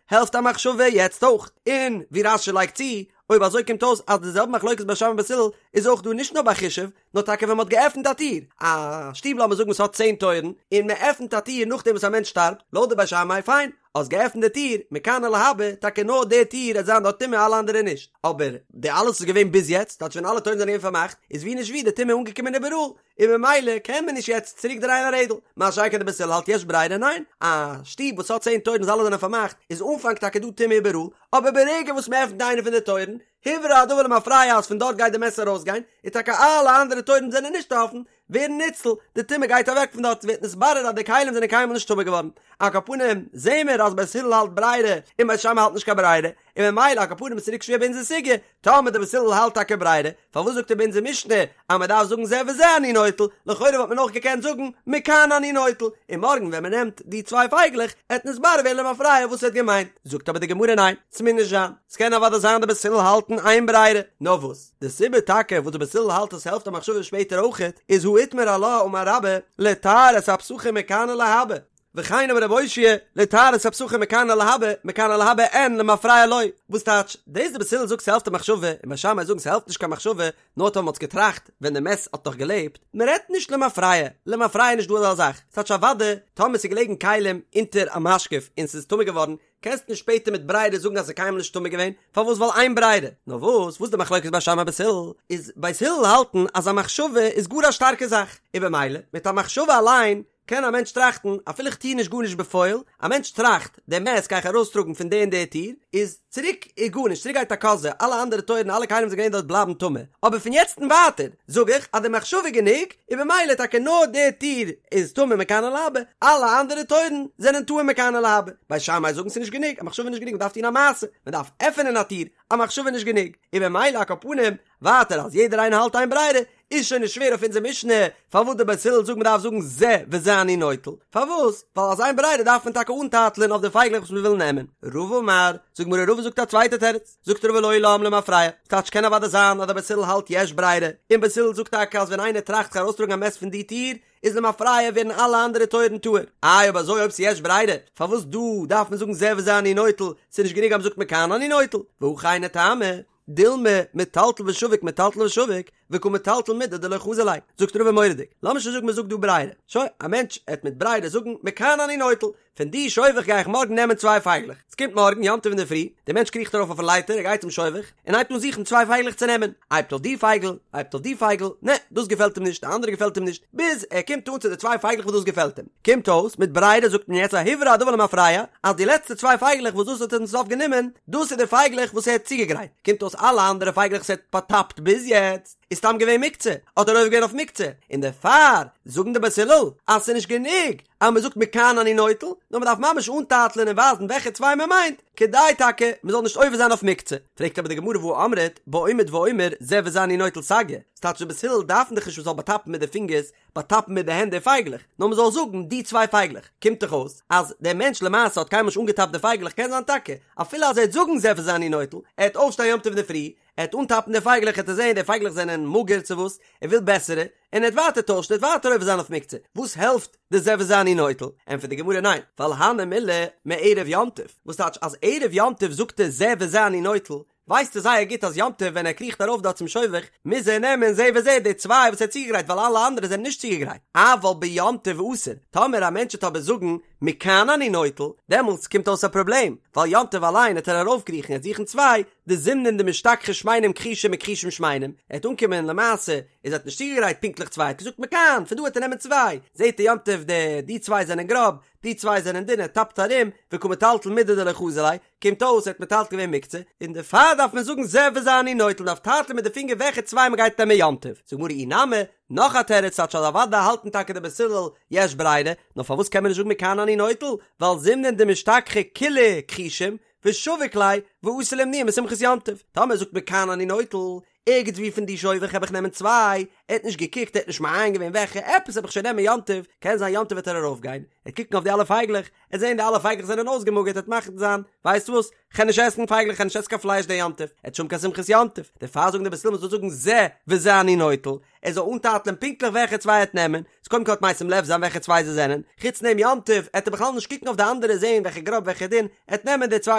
S1: העלפט א מחשבה יעצט אויך, און ווי רש"י לייגט צו, אויב אזוי קומט אויס אז די זעלבע מחלוקת בית שמאי און בית הלל איז אויך דא נישט נאר ביי חישב, נאר טאקע ווען מען האט געעפנט א טיר, א שטוב לאמיר זאגן וואס האט צען טויערן, און מען עפנט א טיר נאכדעם וואס א מענטש שטארבט, לויט די בית שמאי פיין, האסט געעפנט די טיר, מכאן ולהבא, טאקע נאר די טיר עט זיין דארט טומאה אלע אנדערע נישט, אבער די אלעס איז געווען ביז יעצט, טייטש ווען אלע טויערן זענען געווען פארמאכט, איז ווי נישט ווי די טומאה אנגעקומען איבעראל, און ממילא קען מען נישט יעצט צוריק דרייען א רעדל, מה שאין כן די בית הלל האלט יש ברירה ניין, א שטוב וואס האט צען טויערן וואס אלע זענען פארמאכט, איז אנפאנג טאקע דא טומאה איבעראל, אבער ברגע וואס מען עפנט איינע פון די טויערן, הוברר הדבר למפרע אז פון דארט גייט די מת ארויסגיין, און טאקע אלע אנדערע טויערן זענען נישט אפן, ווערן ניצל, די טומאה גייט אוועק פון דארט, ס'ווערט נתברר אז די כלים זענען קיינמאל נישט טמא געווארן. על כל פנים, זעהן מיר אז בית הלל האלט ברירה, און בית שמאי האלט נישט קיין ברירה, און ממילא על כל פנים איז צוריק שווער ביי אונזער סוגיא, טאמער די בית הלל האלט טאקע ברירה, פארוואס זאגט ער ביי אונזער משנה אז מען דארף זאגן זה וזה אני נוטל, לכאורה וואלט מען אויך געקענט זאגן מכאן אני נוטל, און מארגן ווען מען נעמט די צוויי פייגלעך, עט נתברר ווערן למפרע וואס ער האט געמיינט. זאגט אבער די גמרא ניין, ס'מוז נישט זיין, ס'קען אוודאי זיין די בית הלל האלטן אין ברירה, נאר וואס? די סיבה טאקע וואס די בית הלל האלט אז ס'העלפט א מחשבה שפעטער אויכעט, איז הא איתמר עלה אמר רבה לטהר את הפתחים מכאן ולהבא, וכן אמר רב אושעיא לטהר את הפתחים מכאן ולהבא, מכאן ולהבא אין למפרע לא, וואס טייטש, דאס די בית הלל זאגט ס'העלפט א מחשבה, און בית שמאי זאגן ס'העלפט נישט קיין מחשבה, נאר טאמער מ'האט געטראכט ווען די מת האט נאך געלעבט, מ'רעדט נישט למפרע, למפרע איז נישט דא אזא זאך, ס'טייטש אוודאי טאמער ס'איז געלעגן כלים אונטער א משקוף און ס'איז טמא געווארן, קענסט נישט שפעטער מיט ברירה זאגן אז ס'איז קיינמאל נישט טמא געווען, פארוואס ווייל אין ברירה? נאר וואס וואס די מחלוקת בית שמאי בית הלל איז בית הלל האלטן אז א מחשבה איז גאר א שטארקע זאך, און במילא מיט א מחשבה אליין קען א מענטש טראכטן אפילו איך טוה נישט גארנישט בפועל, א מענטש טראכט די מת גיי איך ארויסטראגן פון די און די טיר, איז צוריק איז גארנישט צוריק גייט א קאזע אלע אנדערע טויערן אלע כלים וואס זענען געווען דארט בלייבן טמא, אבער פון יעצט און ווייטער זאג איך אז די מחשבה איז גענוג, און במילא טאקע נאר די טיר איז טמא מכאן ולהבא, אלע אנדערע טויערן זענען טהור מכאן ולהבא. בית שמאי זאגן ס'איז נישט גענוג, א מחשבה איז נישט גענוג מ'דארף טון א מעשה, מ'דארף עפענען א טיר, א מחשבה איז נישט גענוג, און במילא על כל פנים, ווייטער אז יעדער איינער האלט אין ברירה, איז שוין נישט שווער אויף אונזער משנה פארוואס די בית הלל זאגן מ'דארף זאגן זה וזה אני נוטל, פארוואס? ווייל אז אין ברירה דארף מען טאקע אנטייטלען אויף די פייגלעך וואס מ'וויל נעמען. רבא אמר, זאגט גמרא רבא זאגט א צווייטע תירוץ, זאגט רבא לעולם למפרע, ס'טייטש קען אוודאי זיין אז די בית הלל האלט יש ברירה, און בית הלל זאגט טאקע אז ווען איינער טראכט זיך ארויסטראגן א מת פון די טיר, איז למפרע ווערן אלע אנדערע טויערן טהור. איי אויב אזוי אויב ס'יש ברירה, פארוואס דא דארף מען זאגן זה וזה אני נוטל, ס'נישט גענוג אז מ'זאגט מכאן אני נוטל, והכי היינו טעמא, דילמא מטלטל ושביק מטלטל ושביק, וקא מטלטל מידי דלא חזי ליה, זאגט רבא מורא'דיג, לאמיר שוין זאגן מ'זאגט דא ברירה, שוין, א מענטש עט מיט ברירה זאגן מכאן אני נוטל, פון די שובך גיי איך מארגן נעמען צוויי פייגלעך. ס'קומט מארגן, יום טוב אינדערפרי, דער מענטש קריכט ארויף אויפן לייטער, ער גייט צום שובך, און הייבט אן זוכן צוויי פייגלעך צו נעמען. הייבט אויף די פייגל, הייבט אויף די פייגל, נע, דאס געפעלט אים נישט, די אנדערע געפעלט אים נישט, ביז ער קומט אן צו די צוויי פייגלעך וואס דאס געפעלט אים. קומט אויס, מיט ברירה זאגט מען יעצט א הוברר הדבר למפרע, אז די לעצטע צוויי פייגלעך וואס דאס האט ער צום סוף גענומען, דאס איז די פייגלעך וואס ער האט צוגעגרייט. קומט אויס אלע אנדערע פייגלעך וואס ער האט באטאפט ביז יעצט, איז סתם געווען מוקצה, האט ער עובר געווען אויף מוקצה, און דערפאר זאגן די בית הלל אז ס'איז נישט גענוג אז מ'זאגט מכאן אני נוטל, נאר מ'דארף ממש אנטייטלען און ווייזן וועלכע צוויי מ'מיינט, כדי טאקע מ'זאל נישט עובר זיין אויף מוקצה. פרעגט אבער די גמרא והא אמרת בעומד ואומר זה וזה אני נוטל סגי, ס'טייטש די בית הלל דארפן דאך נישט מ'זאל באטאפן מיט די פינגערס, באטאפן מיט די הענט די פייגלעך, נאר מ'זאל זאגן די צוויי פייגלעך, קומט דאך אויס אז דער מענטש למעשה האט קיינמאל נישט אנגעטאפט די פייגלעך, קען זיין טאקע אפילו אז ער וועט זאגן זה וזה אני נוטל, ער וועט אויפשטיין יום טוב אינדערפרי, ער וועט אנטאפן די פייגלעך ער וועט זעהן די פייגלעך זענען מאגער צו וואס, ער וויל בעסערע, און ער וועט ווייטער טוישן ער וועט ווייטער עובר זיין אויף מוקצה, וואס העלפט די זה וזה אני נוטל? ענטפערט די גמרא ניין, ווייל הני מילי מערב יום טוב, וואס טייטש אז ערב יום טוב זאגט ער זה וזה אני נוטל, ווייסט ער זייער גוט אז יום טוב ווען ער קריכט ארויף דארט צום שובך מוז ער נעמען זה וזה די צוויי וואס ער האט צוגעגרייט ווייל אלע אנדערע זענען נישט צוגעגרייט, אבל ביום טוב אסור, טאמער א מענטש וועט אבער זאגן מכאן אני נוטל, דעמאלטס קומט אויס א פראבלעם, ווייל יום טוב אליין וועט ער ארויפקריכן ער וועט זוכן צוויי, דזימנין דמשתכחי שמנים כחושים וכחושים שמנים, ער וועט אנקומען למעשה איז ער האט נישט צוגעגרייט פונקטליך צוויי ער האט געזאגט מכאן פון דא וועט ער נעמען צוויי, זעט ער יום טוב די די צוויי זענען גראב, די צוויי זענען דין ער טאפט ארום, וקא מטלטל מידי דלא חזי ליה, קומט אויס ער האט מטלטל געווען מוקצה, און דערפאר דארף מען זאגן זה וזה אני נוטל מ'דארף טייטלען מיט די פינגער וועלכע צוויי מ'גייט נעמען יום טוב, זאגט גמרא אי נמי, נאך א תירוץ טייטש אז אוודאי האלטן טאקע די בית הלל יש ברירה, נאר פארוואס קען מען נישט זאגן מכאן אני נוטל, ווייל זימנין דמשתכחי כולהו כחושים, ושביק ליה, ואתי לאימנועי משמחת יום טוב. טאמער זאגט מכאן אני נוטל, ערגעץ ווי פון די שובך העב איך נעמען צוויי, ער האט נישט געקוקט, ער האט נישט מעיין געווען וועלכע, עפעס העב איך שוין נעמען יום טוב, קען זיין יום טוב וועט ער ארויף גיין, ער וועט קוקן אויף די אלע פייגלעך, ער וועט זען די אלע פייגלעך זענען אויסגעמאגערט, ער וועט מחליט זיין, ווייסט וואס, כ'גיי נישט עסן פייגלעך, כ'גיי נישט עסן קיין פלייש די יום טוב, ער וועט נישט האבן קיין שמחת יום טוב, דערפאר זאגן די בית הלל מ'זאל זאגן זה וזה אני נוטל, ער זאל אנטייטלען פונקטליך וועלכע צוויי ער וועט נעמען, איז קודם כל וועט משים לב זיין וועלכע צוויי זיי זענען, חוץ דעם יום טוב עט ער בכלל נישט קוקן אויף די אנדערע זעהן וועלכע גראב וועלכע דין, ער וועט נעמען די צוויי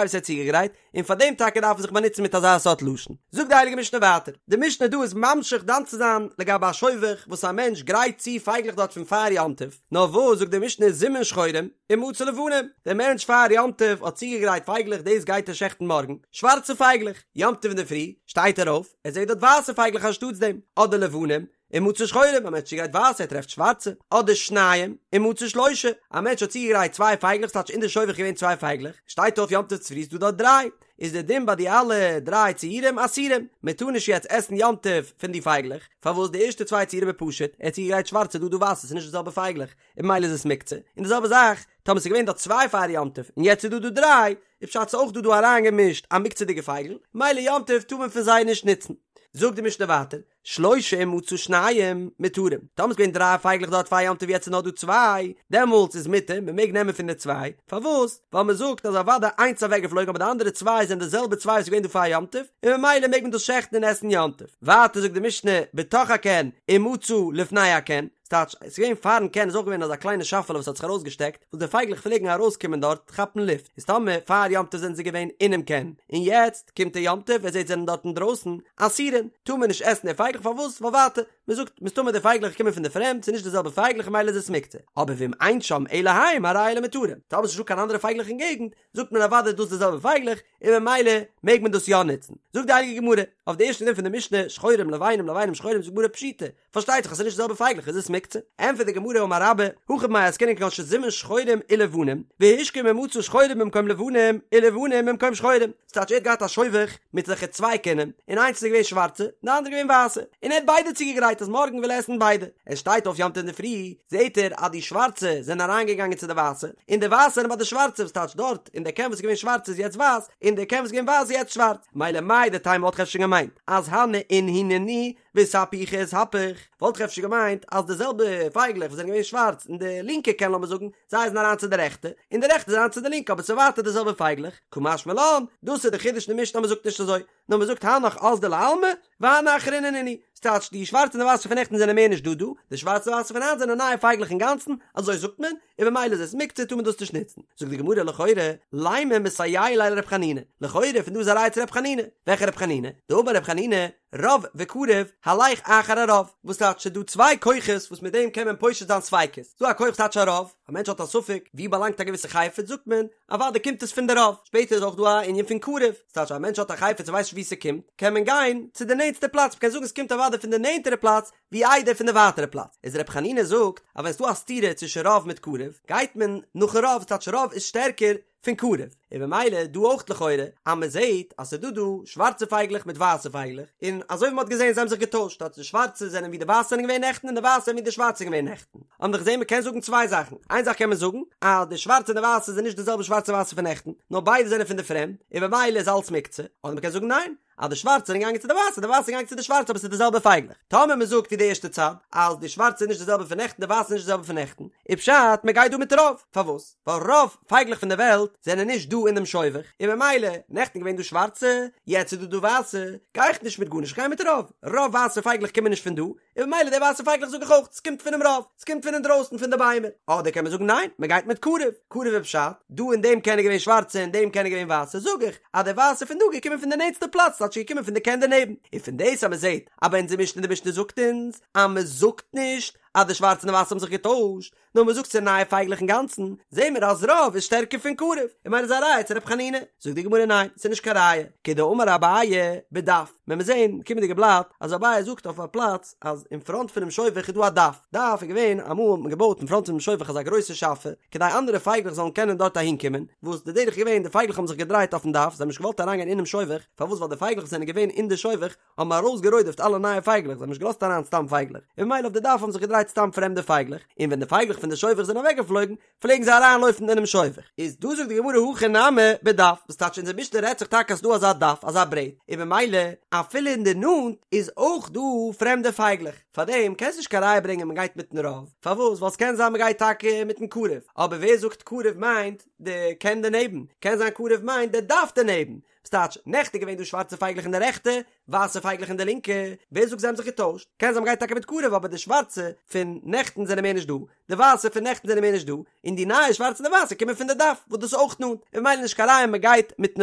S1: וואס ער האט צוגעגרייט, און פאר דעם טאקע דארף מען זיך באנוצן מיט אזא סארט לשון. זאגט די הייליגע משנה ווייטער, די משנה דא איז ממשיך דן צו זיין לגבי א שובך וואס א מענטש גרייט צו פייגלעך דארט פון פאר יום טוב, נאר וואס זאגט די משנה זימן שחורים ומצא לבנים, דער מענטש פאר יום טוב האט צוגעגרייט פייגלעך דאס גייט ער שעכטן מארגן, שווארצע פייגלעך, יום טוב אינדערפרי שטייט ער אויף, ער זעט דארט ווייסע פייגלעך אנשטאטס דעם, אדער לבנים, ומצא שחורים, א מענטש צוגרייט ווייסע ער טרעפט שווארצע, אדער שניים, ומצא שלושה, א מענטש האט צוגעגרייט צוויי פייגלעך ס'טייטש אין די שובך געווען צוויי פייגלעך, שטייט אויף יום טוב צופרי איז דא דארט דריי, איז דער דין ביי די אלע דריי ציורים אסורים, מען טאר נישט יעצט עסן יום טוב פון די פייגלעך, פארוואס די ערשטע צוויי ציורים איז פשוט, ער האט צוגעגרייט שווארצע דא דא ווייסע ס'איז נישט די זעלבע פייגלעך, און ממילא איז עס מוקצה, און די זעלבע זאך טאמער ס'איז געווען דארט צוויי פאר יום טוב און יעצט איז דא דא דריי, איז פשט ס'איז אויך דא דא אריינגעמישט א מוקצה'דיגע פייגל, ממילא יום טוב טאר מען פון זיי נישט נוצן. זאגט די משנה ווייטער, שלושה ומצא שניים מותרים, טאמער ס'איז געווען דריי פייגלעך דארט פאר יום טוב יעצט איז נאר דא צוויי, דעמאלטס איז מותר, מען מעג נעמען פון די צוויי, פארוואס? ווייל מען זאגט אז אוודאי איינס איז אוועקגעפלויגן אבער די אנדערע צוויי זענען די זעלבע צוויי וואס איז געווען דא פאר יום טוב, און ממילא מעג מען דאס שעכטן און עסן יום טוב. ווייטער זאגט די משנה, בתוך הקן ומצא לפני הקן, ס'טייטש, ס'איז געווען פארן קן איז אויך געווען אזא קליינע שאפעלע וואס האט זיך ארויסגעשטעקט, וואס די פייגלעך פלעגן ארויסקומען דארט כאפן לופט, איז טאמער פאר יום טוב זענען זיי געווען אינעם קן, און יעצט קומט דער יום טוב ער זעט זענען דארט אינדרויסן, אסורין, טאר מען נישט עסן די פייגלעך פארוואס? ווייל ווייטער, מען זאגט, מסתמא די פייגלעך קומען פון די פרעמד, ס'איז נישט די זעלבע פייגלעך ממילא איז עס מוקצה. אבער ואם אין שם אלא הם הרי אלו מותרים, טאמער ס'איז נישטא קיין אנדערע פייגלעך אין געגנט, זאגט מען אוודאי איז דאס די זעלבע פייגלעך, און ממילא מעג מען דאס יא נוצן. זאגט די הייליגע גמרא, אויף די ערשטע דין פון די משנה, שחורים לבנים לבנים שחורים זאגט די גמרא פשיטא, פארשטייט זיך אז ס'איז נישט די זעלבע פייגלעך איז עס מוקצה. ענטפערט די גמרא אמר רבה, הכא במאי עסקינן כגון שזימן שחורים ולבנים, והשכים ומצא שחורים במקום לבנים, ולבנים במקום שחורים. ס'טייטש ער האט געהאט א שובך מיט אזעלכע צוויי קינים, און איינס איז געווען שווארצע, און די אנדערע געווען ווייסע, און ער האט ביידע צוגעגרייט אז מארגן וויל ער עסן ביידע. ער שטייט אויף יום טוב אינדערפרי, זעט ער אז די שווארצע זענען אריינגעגאנגען צו די ווייסע, און די ווייסע זענען ביי די שווארצע, וואס טייטש דארט, אין די קן וואס איז געווען שווארץ איז יעצט ווייס, און די קן וואס איז געווען ווייס איז יעצט שווארץ. מילא מהו דתימא וואלט איך אפשר געמיינט אז הני אינהו נינהו. ואיתהפוכי איתהפוך, וואלט איך אפשר געמיינט אז די זעלבע פייגלעך וואס זענען געווען שווארץ אין די לינקע קן לאמיר זאגן, זיי זענען אריין צו די רעכטע, און די רעכטע זענען אריין צו די לינקע אבער ס'איז ווייטער די זעלבע פייגלעך, קא משמע לן, דאס איז די חידוש אין די משנה אז מ'זאגט נישט אזוי, נאר מ'זאגט הנך אזדו לעלמא, והני אחריני נינהו, ס'טייטש די שווארצע און די ווייסע פון נעכטן זענען מער נישט דא דא, די שווארצע און ווייסע פון היינט זענען נייע פייגלעך אינגאנצן, אזוי זאגט מען, און במילא איז עס מוקצה טאר מען דאס נישט נוצן. זאגט די גמרא לכאורה, לימא מסייע ליה לר' חנינא, לכאורה פון דא איז א ראיה צו ר' חנינא, וועלכע ר' חנינא? דאמר ר' חנינא, רוב וקרוב, הלך אחר הרוב, וואס טייטש ס'איז דא צוויי כוחות וואס מיט דעם קען מען פושט זיין ספיקות, ס'דא א כח וואס טייטש א רוב, א מענטש האט א ספק ווי באלאנגט א געוויסע חפץ זאגט מען, אוודאי קומט עס פון די רוב, שפעטער איז אויך דא א ענין פון קרוב, ס'טייטש א מענטש האט א חפץ און ווייסט נישט ווי ס'קומט, קען מען גיין צו די נענטסטע פלאץ, מ'קען זאגן ס'קומט אוודאי פון די נענטערע פלאץ ווי איידער פון די ווייטערע פלאץ, איז ר' חנינא זאגט אז ווען ס'דא א סתירה צווישן רוב מיט קרוב, גייט מען נאכן רוב, ס'טייטש רוב איז שטערקער פון קרוב, און במילא דא אויך לכאורה אז מען זעהט אז ס'איז דא דא שווארצע פייגלעך מיט ווייסע פייגלעך, און אזוי ווי מען האט געזעהן זיי האבן זיך געטוישט, אז די שווארצע זענען ווי די ווייסע זענען געווען נעכטן און די ווייסע זענען ווי די שווארצע זענען געווען נעכטן, האבן מיר געזעהן מען קען זאגן צוויי זאכן, איין זאך קען מען זאגן אז די שווארצע און די ווייסע זענען נישט די זעלבע שווארצע ווייסע פון נעכטן, נאר ביידע זענען פון די פרעמד, און במילא איז אלץ מוקצה, אדער מען קען זאגן ניין, אז די שווארצע זענען געגאנגען צו די ווייסע, די ווייסע זענען געגאנגען צו די שווארצע אבער ס'איז די זעלבע פייגלעך. טאמער מען זאגט ווי די ערשטע צד, אז די שווארצע איז נישט די זעלבע פון נעכטן די ווייסע איז נישט די זעלבע פון נעכטן, איז פשט מען גייט דא מיט רוב. פארוואס? ווייל רוב פייגלעך פון די וועלט זענען נישט דא אין דעם שובך, און ממילא, נעכטן געווען דא שווארצע, יעצט איז דא דא ווייסע, גיי איך נישט מיט גארנישט איך גיי מיט רוב. רוב ווייסע פייגלעך קומען נישט פון דא, און ממילא די ווייסע פייגלעך זאג איך אויך, ס'קומט פונעם רוב, ס'קומט פון אינדרויסן פון די ביימער. אדער קען מען זאגן ניין, מ'גייט מיט קרוב, קרוב איז פשט, דא אין דעם קן איז געווען שווארצע אין דעם קן איז געווען ווייסע, זאג איך, אז די ווייסע פון דא געקומען פון די נענטסטע פלאץ, ס'טייטש געקומען פון די קן דערנעבן. און פון דאס אז מ'זעט אז ביי אונזער משנה די משנה זאגט אונז אז מ'זאגט נישט אז די שווארצע און די ווייסע האבן זיך געטוישט, נאר מען זאגט ס'איז נייע פייגלעך אינגאנצן, זעהן מיר אז רוב איז שטערקער פון קרוב, און ממילא איז א ראיה צו ר' חנינא. זאגט די גמרא ניין, ס'איז נישט קיין ראיה, כדאמר אביי בדף, ווען מיר זעהן קומענדיגע בלאט אז אביי זאגט אויף א פלאץ אז אין פראנט פונעם שובך איז דא א דף, דף איז געווען אמאל האט מען געבויט אין פראנט פונעם שובך אזא גרויסע שאפע כדי אנדערע פייגלעך זאלן קענען דארט אהין קומען, וואס די דרך איז געווען די פייגלעך האבן זיך געדרייט אויפן דף, זיי האבן נישט געוואלט אריינגיין אינעם שובך, פארוואס ווייל די פייגלעך וואס זענען געווען אין די שובך האבן ארויסגערודפ'ט אלע נייע פייגלעך, זיי האבן נישט געלאזט אריין סתם פייגלעך, און ממילא אויף די דף האבן זיך געדרייט סתם פרעמדע פייגלעך, און ווען די פייגלעך פון די שובך זענען אוועקגעפלויגן, פלעגן זיי אריינלויפן אינעם שובך. איז דא זאגט די גמרא הכא נמי בדף, וואס טייטש אונזער משנה רעדט זיך טאקע אז ס'דא אזא דף, אזא ברעט, און ממילא אפילו אין די נאנט איז אויך דא פרעמדע פייגלעך, פארדעם קענסט נישט קיין ראיה ברענגען מ'גייט מיטן רוב, פארוואס? ווייל ס'קען זיין מ'גייט טאקע מיטן קרוב, אבער ווער זאגט קרוב מיינט די קן דערנעבן, קען זיין קרוב מיינט די דף דערנעבן, ס'טייטש, נעכטן איז געווען דא שווארצע פייגלעך אין די רעכטע, ווייסע פייגלעך אין די לינקע, ווער זאגט זיי האבן זיך געטוישט? קען זיין מ'גייט טאקע מיט קרוב אבער די שווארצע פון נעכטן זענען מער נישט דא, די ווייסע פון נעכטן זענען מער נישט דא, און די נייע שווארצע און די ווייסע קומען פון די דף וואס דאס איז אויך נאנט, און ממילא נישט קיין ראיה מ'גייט מיטן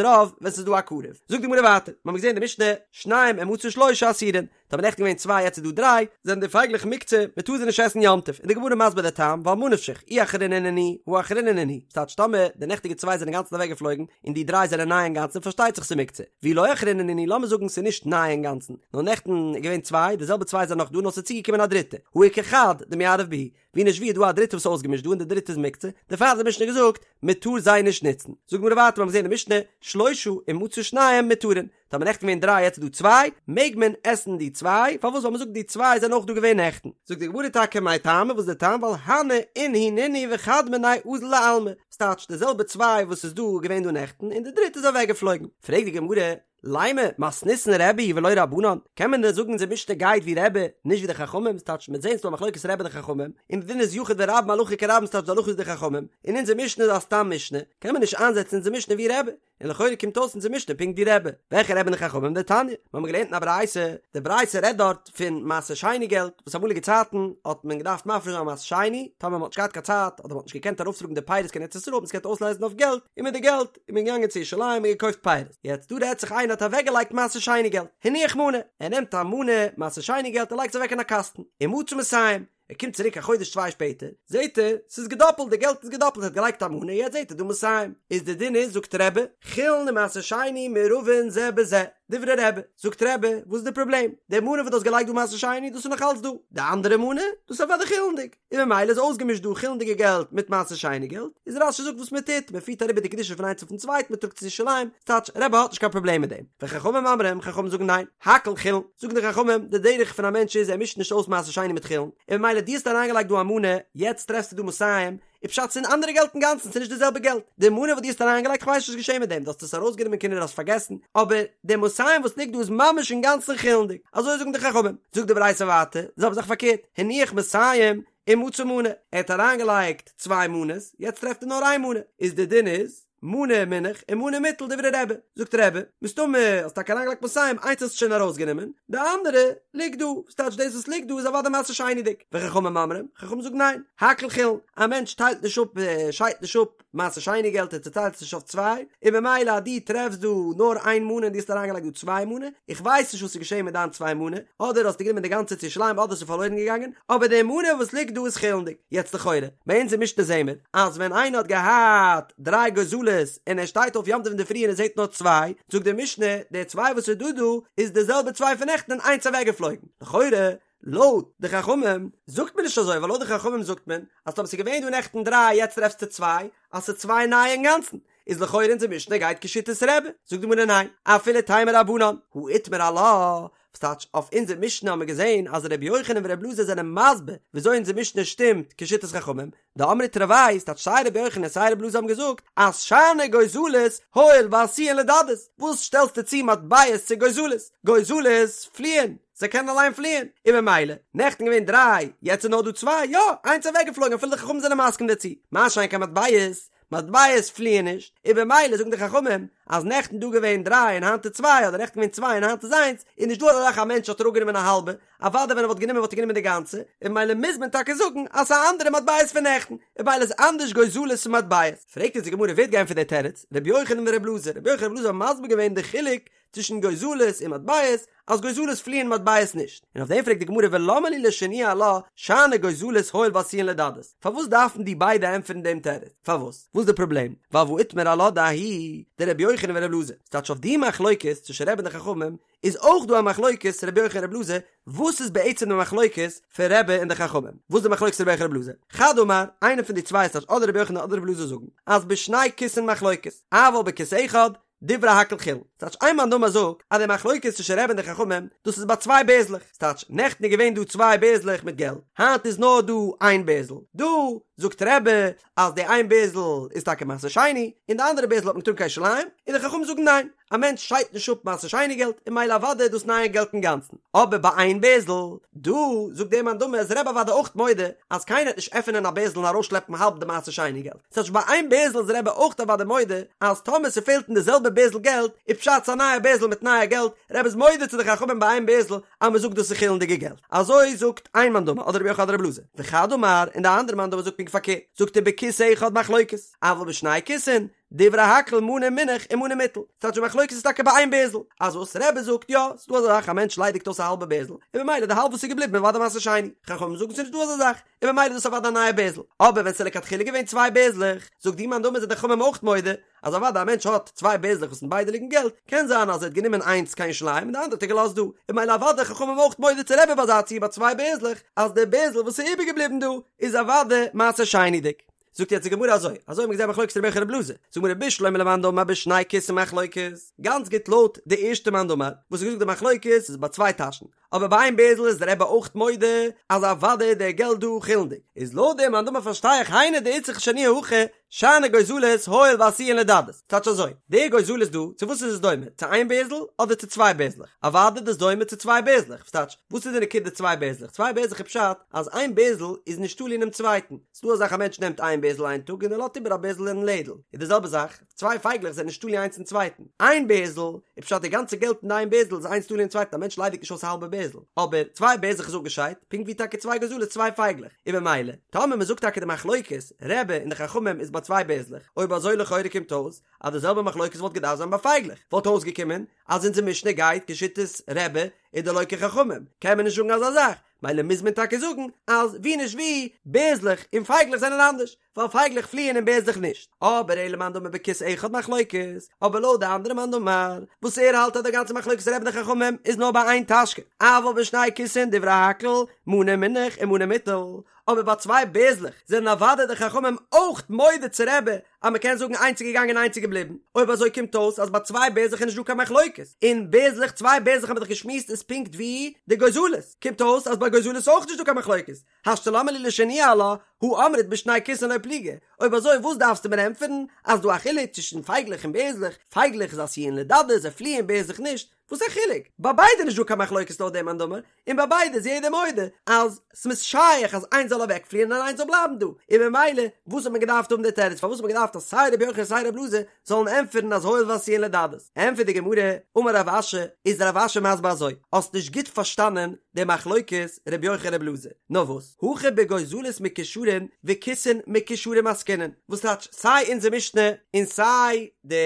S1: רוב ווען ס'איז דא א קרוב. זאגט די גמרא ווייטער, מ'האמיר געזען אין די משנה, שניים ומצא שלושה אסורין, טאמער נעכטן געווען צוויי יעצט איז דא דריי, זענען די פייגלעך מוקצה, מען טאר זיי נישט עסן יום טוב, און די גמרא מסביר די טעם, ווייל ממה נפשך, אי אחרינא נינהו, הא אחרינא נינהו, ס'טייטש טאמער די נעכטיגע צוויי זענען אינגאנצן אוועק געפלויגן, און די דריי זענען ניי אינגאנצן פארשטייט זיך ס'מוקצה, ואי לא אחרינא נינהו, לאמיר זאגן ס'איז נישט ניי אינגאנצן, נאר נעכטן איז געווען צוויי, די זעלבע צוויי זענען נאך דא נאר ס'איז צוגעקומען א דריטע, הא איכא חד דמערב בהו, ווי נישט ווי איז דא א דריטע וואס איז אויסגעמישט דא און די דריטע איז מוקצה, דערפאר האט די משנה געזאגט מען טאר זיי נישט נוצן. זאגט די גמרא ווייטער מיר האבן געזען אין די משנה, שלושה ומצא שניים מותרין, טאמער נעכטן געווען דריי יעצט איז דא צוויי, מעג מען עסן די צוויי, פארוואס ווייל מען זאגט די צוויי זענען אויך דא געווען נעכטן. זאגט די גמרא טאקע מאי טעמא וואס איז די טעם ווייל הני אינהו נינהו וחד מינייהו אזל לעלמא, ס'טייטש די זעלבע צוויי וואס איז דא געווען דא נעכטן און די דריטע איז אוועקגעפלויגן. פרעגט די גמרא, לימא מתניתין רבי היא ולא רבנן, קען מען דען זאגן אונזער משנה גייט ווי רבי, נישט ווי די חכמים, ס'טייטש מ'וועט זען ס'דא א מחלוקת רבי און די חכמים, און די דין איז יחיד ורבים הלכה כרבים ס'טייטש די הלכה איז די חכמים, און אונזער משנה איז א סתם משנה, קען מען נישט איינזעצן אונזער משנה ווי רבי, און לכאורה קומט אויס אונזער משנה פונקט ווי רבי, וועלכע רבי און די חכמים? דתניא, מיר האבן געלערנט אין א ברייתא, די ברייתא רעדט דארט פון מעשר שני געלט, וואס אמאליגע צייטן האט מען געדארפט מפריש זיין מעשר שני, טאמער מ'האט נישט געהאט קיין צייט אדער מ'האט נישט געקענט ארויפטראגן די פירות קיין ארץ ישראל האט מען עס געקענט אויסלייזן אויף געלט, און מיט די געלט איז מען געגאנגען צו ירושלים און געקויפט פירות. יעצט דא רעדט זיך איינער האט אוועקגעלייגט מעשר שני געלט, הניח מנה, ער נעמט א מנה מעשר שני געלט און לייגט עס אוועק אין א קאסטן, ומצא מאתים, ער קומט צוריק א חודש צוויי שפעטער, זעט ער ס'איז געדאפלט, די געלט איז געדאפלט, ער האט געלייגט א מנה, יעצט זעט ער דא מאתים, איז די דין איז זאגט רבי, חולין ומעשר שני מעורבין זה בזה, דברי רבי, זאגט רבי, וואס איז די פראבלעם? די מנה וואס דו האסט געלייגט דא מעשר שני, דאס איז נאך אלץ דא, די אנדערע מנה, דאס איז אוודאי חולין'דיג. און ממילא איז אויסגעמישט דא חולין'דיגע געלט מיט מעשר שני געלט, איז רש"י זאגט וואס מען טוט, מען פירט אריבער די קדושה פון איינס אויפן צווייטן, מען טראגט צו ירושלים, ס'טייטש רבי האט נישט קיין פראבלעם מיט דעם, וחכמים אומרים, חכמים זאגן ניין, הכל חולין, זאגן די חכמים, די דרך פון א מענטש איז ער מישט נישט אויס מעשר שני מיט חולין, און ממילא דו האסט אריינגעלייגט דא א מנה, יעצט טרעפסטו דא מאתים, איז פשט ס'איז אנדערע געלט אינגאנצן, ס'איז נישט די זעלבע געלט, די מנה וואס דו האסט אריינגעלייגט כ'ווייס נישט וואס איז געשען מיט דעם, דו האסט עס ארויסגענומען כנראה האסט פארגעסן, אבער די מאתים וואס ליגט דא איז ממש אינגאנצן חולין'דיג, אזוי זאגן די חכמים, זאגט די ברייתא ווייטער, די זעלבע זאך פארקערט, הניח מאתים ומצא מנה, ער האט אריינגעלייגט צוויי מנות, יעצט טרעפט ער נאר איין מנה, איז די דין איז, מנה מונח ומנה מוטל דברי רבי, זאגט רבי, מסתמא האסט טאקע אריינגעלייגט מאתים, איינס האסטו שוין ארויסגענומען, די אנדערע ליגט דא, וואס טייטש דאס וואס ליגט דא איז אוודאי מעשר שני'דיג, וחכמים אומרים, חכמים זאגן ניין, הכל חולין, א מענטש טיילט נישט אפ, שיידט נישט אפ מעשר שני געלט, ער צוטיילט עס נישט אויף צוויי, און ממילא אז דו טרעפסט דא נאר איין מנה און דו האסט אריינגעלייגט דא צוויי מנה, איך ווייס נישט וואס איז געשען מיט דיין צוויי מנה, אדער האסטו גענומען די גאנצע צו ירושלים אדער ס'איז פארלוירן געגאנגען, אבער די מנה וואס ליגט דא איז חולין'דיג. יעצט לכאורה, ביי אונז אין משנה זעהן מיר, אז ווען איינער האט געהאט דריי גוזלות און ער שטייט אויף יום טוב אינדערפרי און ער זעהט נאר צוויי, זאגט די משנה, די צוויי וואס איז דא דא איז די זעלבע צוויי פון נעכטן און איינס אוועקגעפלויגן. לכאורה, לויט די חכמים, זאגט מען נישט אזוי, ווייל לויט די חכמים זאגט מען, אז טאמער ס'איז געווען דא נעכטן דריי יעצט טרעפסטו צוויי, אז ס'איז צוויי נייע אינגאנצן, איז לכאורה אונזער משנה גייט כשיטת רבי, זאגט די גמרא ניין, אפילו תימא רבנן, הא איתמר עלה, וואס טייטש אויף אונזער משנה האבן מיר געזען אז ר' יוחנן ור' אלעזר זענען מסביר וויאזוי אונזער משנה שטימט כשיטת חכמים, דאמרי תרוייהו, ס'טייטש סיי ר' יוחנן און סיי ר' אלעזר האבן געזאגט אז שאני גוזלות הואיל ועשויין לדדות, וואס שטעלסטו צו מטבעות צו גוזלות? גוזלות פליען, זיי קענען אליין פליען, און ממילא, נעכטן געווען דריי, יעצט איז נאר דא צוויי, יא, איינס אוועקגעפלויגן אפילו די חכמים זענען מסכים דערצו, מה שאין כן מטבעות, מטבעות פליען נישט, און במילא זאגן די חכמים אז נעכטן דא געווען דריי און היינט איז צוויי, אדער נעכטן געווען צוויי און היינט איז איינס, איז נישט דא אזא זאך א מענטש האט אראפגענומען א האלבע, אוודאי ווען ער וואלט גענומען וואלט ער גענומען די גאנצע, און במילא מוז מען טאקע זאגן אז ס'איז א אנדערע מטבעות פון נעכטן, און במילא איז אנדערש גוזלות פון מטבעות. פרעגט אונז די גמרא ווער האט געענטפערט די תירוץ, רבי יוחנן ורבי אלעזר, רבי יוחנן און רבי אלעזר האבן מסביר געווען די חילוק צווישן גוזלות און מטבעות, אז גוזלות פליען מטבעות נישט, און אויף דעם פרעגט די גמרא ולמה לי לשנויי עלה שאני גוזלות הואיל ועשויין לדדות, פארוואס דארפן די ביידע ענטפערן דעם תירוץ? פארוואס? וואס איז די פראבלעם? ווייל והא איתמר עלה דההיא דרבי יוחנן ורבי אלעזר, ס'טייטש אויף די מחלוקת צווישן רבי און די חכמים איז אויך דא א מחלוקת רבי יוחנן רבי אלעזר, וואס איז בעצם די מחלוקת פון רבי און די חכמים? וואס איז די מחלוקת רבי יוחנן רבי אלעזר? חד אמר, איינער פון די צוויי ס'טייטש אדער רבי יוחנן אדער רבי אלעזר זאגן אז בשני כיסין מחלוקת, אבל בכיס אחד דברי הכל חולין. ס'טייטש איין מאן דאמר זאגט אז די מחלוקת צווישן רבי און די חכמים דאס איז ביי צוויי בערזלעך, ס'טייטש נעכטן איז געווען דא צוויי בערזלעך מיט געלט, היינט איז נאר דא איין בערזל, דא זאגט רבי אז די איין בערזל איז טאקע מעשר שני, און די אנדערע בערזל האט מען געטראגן קיין ירושלים, און די חכמים זאגן ניין, א מענטש שיידט נישט אפ מעשר שני געלט, און ממילא אוודאי איז דאס נייע געלט אינגאנצן, אבער ביי איין בערזל, דא זאגט דער מאן דאמר איז רבי אוודאי אויך מודה אז קיינער וועט נישט עפענען א בערזל און ארויסשלעפן האלב די מעשר שני געלט. ס'טייטש ביי איין בערזל איז רבי אויך אוודאי מודה אז טאמער ס'פעלט אין די זעלבע בערזל געלט איז פשט ס'א נייע בערזל מיט נייע געלט, רבי איז מודה צו די חכמים ביי איין בערזל אז מ'זאגט דאס איז חולין'דיגע געלט. אזוי זאגט איין מאן דאמר אדער רבי יוחנן אדער רבי אלעזר. וחד אמר, און די אנדערע מאן דאמר זאגט פונקט פארקערט, זאגט ער בכיס אחד מחלוקת, אבל בשני כיסין, דברי הכל מנה מונח ומנה מוטל. ס'טייטש די מחלוקת איז טאקע ביי איין בערזל. אז וואס רבי זאגט יא, ס'דא אזא זאך א מענטש ליידיגט אויס א האלבע בערזל, און במילא די האלב וואס איז געבליבן איז אוודאי מעשר שני. חכמים זאגן ס'נישט דא אזא זאך. און במילא איז דאס אוודאי א נייע בערזל. אבער ווען ס'איז לכתחילה געווען צוויי בערזלעך, זאגט די מאן דאמר זענען די חכמים אויך מודה, אז אוודאי א מענטש האט צוויי בערזלעך וואס אין ביידע ליגן געלט, קען זיין אז ער האט גענומען איינס קיין ירושלים און די אנדערע האט ער געלאזט דא, און במילא אוודאי חכמים אויך מודה צו רבי ביי אזא ציור ביי צוויי בערזלעך, אז די בערזל וואס איז איבערגעבליבן דא איז אוודאי מעשר שני'דיג. זאגט יעצט די גמרא אזוי, אזוי האט מען געזען מחלוקת רבי יוחנן רבי אלעזר, זאגט די גמרא בשלמא למאן דאמר בשני כיסין מחלוקת, גאנץ גוט לויט די ערשטע מאן דאמר וואס האט געזאגט די מחלוקת איז ביי צוויי טאשן, אבער ביי איין בערזל איז דער רבי אויך מודה אז אוודאי איז דער געלט דא חולין'דיג, איז לויט דעם מאן דאמר פארשטיי איך היינו דאיצטריך לשנויי הכא שאני גוזלות הואיל ועשויין לדדות, ס'טייטש אזוי, די גוזלות דא, צו וואס איז עס דומה, צו איין בערזל אדער צו צוויי בערזלעך? אוודאי איז דאס דומה צו צוויי בערזלעך, וואס טייטש, וואס איז די נקודה צוויי בערזלעך? צוויי בערזלעך איז פשט אז איין בערזל איז נישט תלוי אינעם צווייטן, ס'דא אזא זאך א מענטש נעמט איין בערזל איין טאג און ער לאזט איבער א בערזל אין לעדל, איז די זעלבע זאך, צוויי פייגלעך זענען נישט תלוי איינס אין צווייטן, איין בערזל איז פשט די גאנצע געלט אין די איין בערזל איז איינס תלוי אין צווייטן א מענטש ליידיגט נישט אויס א האלבע בערזל, אבער צוויי בערזלעך איז אפגעשיידט, פונקט ווי טאקע צוויי גוזלות צוויי פייגלעך, און במילא, טאמער מ'זאגט טאקע די מחלוקת, רבי און די חכמים איז ביי צוויי בערזלעך, אויב אזוי לכאורה קומט אויס אז די זעלבע מחלוקת וואלט געדארפט זיין ביי פייגלעך, וואלט אויסגעקומען אז אונזער משנה גייט כשיטת רבי און דלא כחכמים, קען מען נישט זאגן אזא זאך, מילא מוז מען טאקע זאגן אז ווי נישט ווי, בערזלעך און פייגלעך זענען אנדערש, ווייל פייגלעך פליען און בערזלעך נישט. אבער אלא למאן דאמר בכיס אחד מחלוקת, אבער לויט די אנדערע מאן דאמר, וואס ער האלט אז די גאנצע מחלוקת רבי און די חכמים איז נאר ביי איין טאשקע, אבל בשני כיסין דברי הכל, מנה מונח ומנה מוטל, אבער ביי צוויי בערזלעך זענען אוודאי די חכמים אויך מודה צו רבי. אז מ'קען זאגן איינס איז געגאנגען איינס איז געבליבן, אויב אזוי קומט אויס אז ביי צוויי בערזלעך איז נישט דא קיין מחלוקת, און בערזלעך צוויי בערזלעך האבן מיר דאך געשמועסט איז פונקט ווי די גוזלות, קומט אויס אז ביי גוזלות איז אויך נישט דא קיין מחלוקת, השתא למה לי לשנויי עלה, הא אמרת בשני כיסין לא פליגי, אויב אזוי וואס דארפסטו מיר ענטפערן אז דא א חילוק צווישן פייגלעך און בערזלעך, פייגלעך איז עשויין לדדות זיי פליען בערזלעך נישט, וואס א חילוק? ביי ביידע נישט דא קיין מחלוקת לויט דעם מאן דאמר, און ביי ביידע איז יעדער מודה אז ס'איז שייך אז איינס זאל אוועקפליען און איינס זאל בלייבן דא, און ממילא וואס האט מען געדארפט האבן די תירוץ פארוואס האט מען געדארפט אז סיי רבי יוחנן סיי רבי אלעזר זאלן ענטפערן אז הואיל ועשויין לדדות? ענטפערט די גמרא, אמר רב אשי, איז רב אשי מסביר אזוי, האסט נישט גוט פארשטאנען די מחלוקת רבי יוחנן רבי אלעזר, נאר וואס, הכא בגוזלות מקושרין וכיסין מקושרים עסקינן, וואס טייטש סיי אונזער משנה און סיי די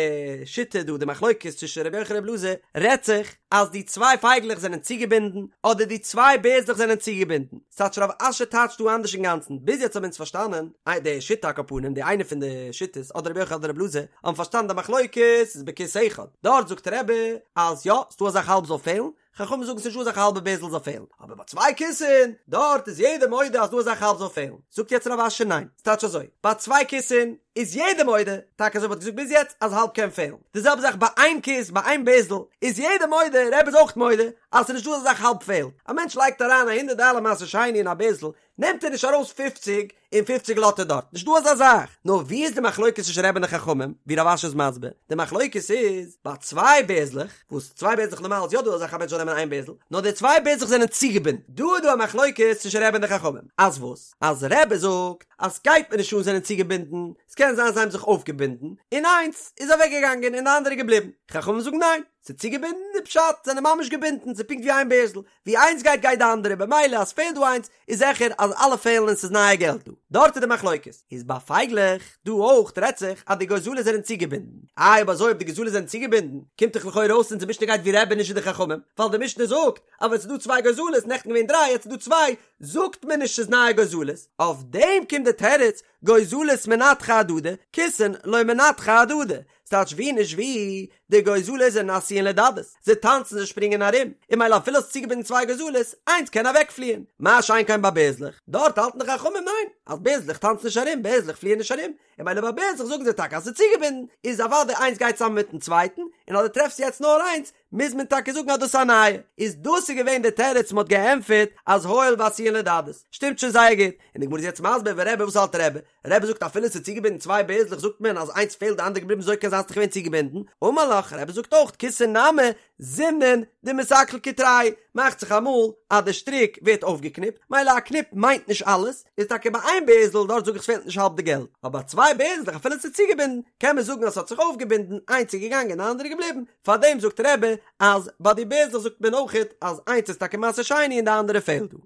S1: שיטה דא די מחלוקת צווישן רבי יוחנן רבי אלעזר רעדט זיך אז די צוויי פייגלעך זענען צוגעבינדן אדער די צוויי בערזלעך זענען צוגעבינדן, ס'טייטש רב אשי טייטשט דא אנדערש אינגאנצן, ביז יעצט האבן אונז פארשטאנען איי די שיטה על כל פנים די איינע פון די שיטות אדער רבי יוחנן אדער רבי אלעזר האבן פארשטאנען די מחלוקת איז בכיס אחד, דארט זאגט רבי אז יא ס'דא א זאך האלב זאל פעלן, חכמים זאגן ס'נישט דא אזא זאך א האלבע בערזל זאל פעלן, אבער ביי צוויי כיסין, דארט איז יעדער מודה אז דא אזא זאך האלב זאל פעלן, זאגט יעצט רב אשי ניין, ס'טייטש אזוי, ביי צוויי כיסין איז יעדער מודה, טאקע אזוי ווי מ'האט געזאגט ביז יעצט אז האלב קען פעלן, די זעלבע זאך ביי איין כיס ביי איין בערזל איז יעדער מודה, רבי איז אויך מודה, אז ס'נישט דא אזא זאך האלב פעלט, א מענטש לייגט אריין א הונדערט דאלער מעשר שני אין א בערזל, נעמט ער נישט ארויס פופציג און פופציג לאזט ער דארט, נישט דא אזא זאך, נאר ווי איז די מחלוקת צווישן רבי און די חכמים, ווי רב אשי איז מסביר, די מחלוקת איז ביי צוויי בערזלעך, וואס צוויי בערזלעך נארמאל איז יא דא אזא זאך א מענטש זאל נעמען איין בערזל, נאר די צוויי בערזלעך זענען צוגעבינדן, דא איז דא א מחלוקת צווישן רבי און די חכמים, אז וואס? אז רבי זאגט אז סגייט מיר נישט אן זענען צוגעבינדן, ס'קען זיין זיי האבן זיך אויפגעבינדן, און איינס איז אוועקגעגאנגען און די אנדערע געבליבן, חכמים זאגן ניין, ס'איז צוגעבינדן די פשט זענען ממש געבינדן, ס'איז פונקט ווי איין בערזל, ווי איינס גייט גייט די אנדערע במילא אז פעלט דא איינס איז זיכער אז אלע פעלן און ס'איז נייע געלט דא. דארט איז די מחלוקת. איז ביי פייגלעך דא אויך רעדט זיך אז די גוזלות זענען צוגעבינדן. איי אויב אזוי אויב די גוזלות זענען צוגעבינדן קומט דאך לכאורה אויס אונזער משנה גייט ווי רבי נישט ווי די חכמים ווייל די משנה זאגט אז ווען ס'איז דא צוויי גוזלות נעכטן געווען דריי יעצט איז דא צוויי זאגט מען נישט ס'איז נייע גוזלות. אויף דעם קומט די תירוץ גוזלות מנתחי אהדדי כיסין לא מנתחי אהדדי ס'טייטש ווי נישט ווי, די גוזלות זענען עשויין לדדות, זיי טאנצן זיי שפרינגען ארום, און ממילא אפילו האסט צוגעבינדן צוויי גוזלות, איינס קען אוועקפליען, מה שאין כן ביי בערזלעך, דארט האלטן די חכמים ניין, אז בערזלעך טאנצן נישט ארום, בערזלעך פליען נישט ארום, און ממילא ביי בערזלעך זאגן זיי טאקע אז ס'איז צוגעבינדן, איז אוודאי איינס גייט צוזאמען מיטן צווייטן, און אז דו טרעפסט יעצט נאר איינס, מוז מען טאקע זאגן אז דאס איז א נייע. איז דאס איז געווען די תירוץ מ'האט געענטפערט אז הואיל ועשויין לדדות. שטימט שוין זייער גוט. און די גמרא איז יעצט מסביר ורבי וואס האלט רבי? רבי זאגט אפילו ס'איז צוגעבינדן צוויי בערזלעך זאגט מען אז איינס פעלט די אנדערע געבליבן אזוי קען זיין ס'איז דאך געווען צוגעבינדן, אמר לך, רבי זאגט אויך כיסין נמי זימנין דמיתעקל קטרייהו, מאכט זיך אמאל אז די שטריק ווערט אויפגעקניפט, מילא א קניפ מיינט נישט אלעס, איז טאקע ביי איין בערזל דארט זאג איך ס'פעלט נישט האלב די געלט, אבער ביי צוויי בערזלעך אפילו ס'איז צוגעבינדן קען מען זאגן אז ס'האט זיך אויפגעבינדן, איינס איז געגאנגען די אנדערע געבליבן, פארדעם זאגט רבי אז ביי די בערזלעך זאגט מען אויכעט אז איינס איז טאקע מעשר שני און די אנדערע פעלט דא.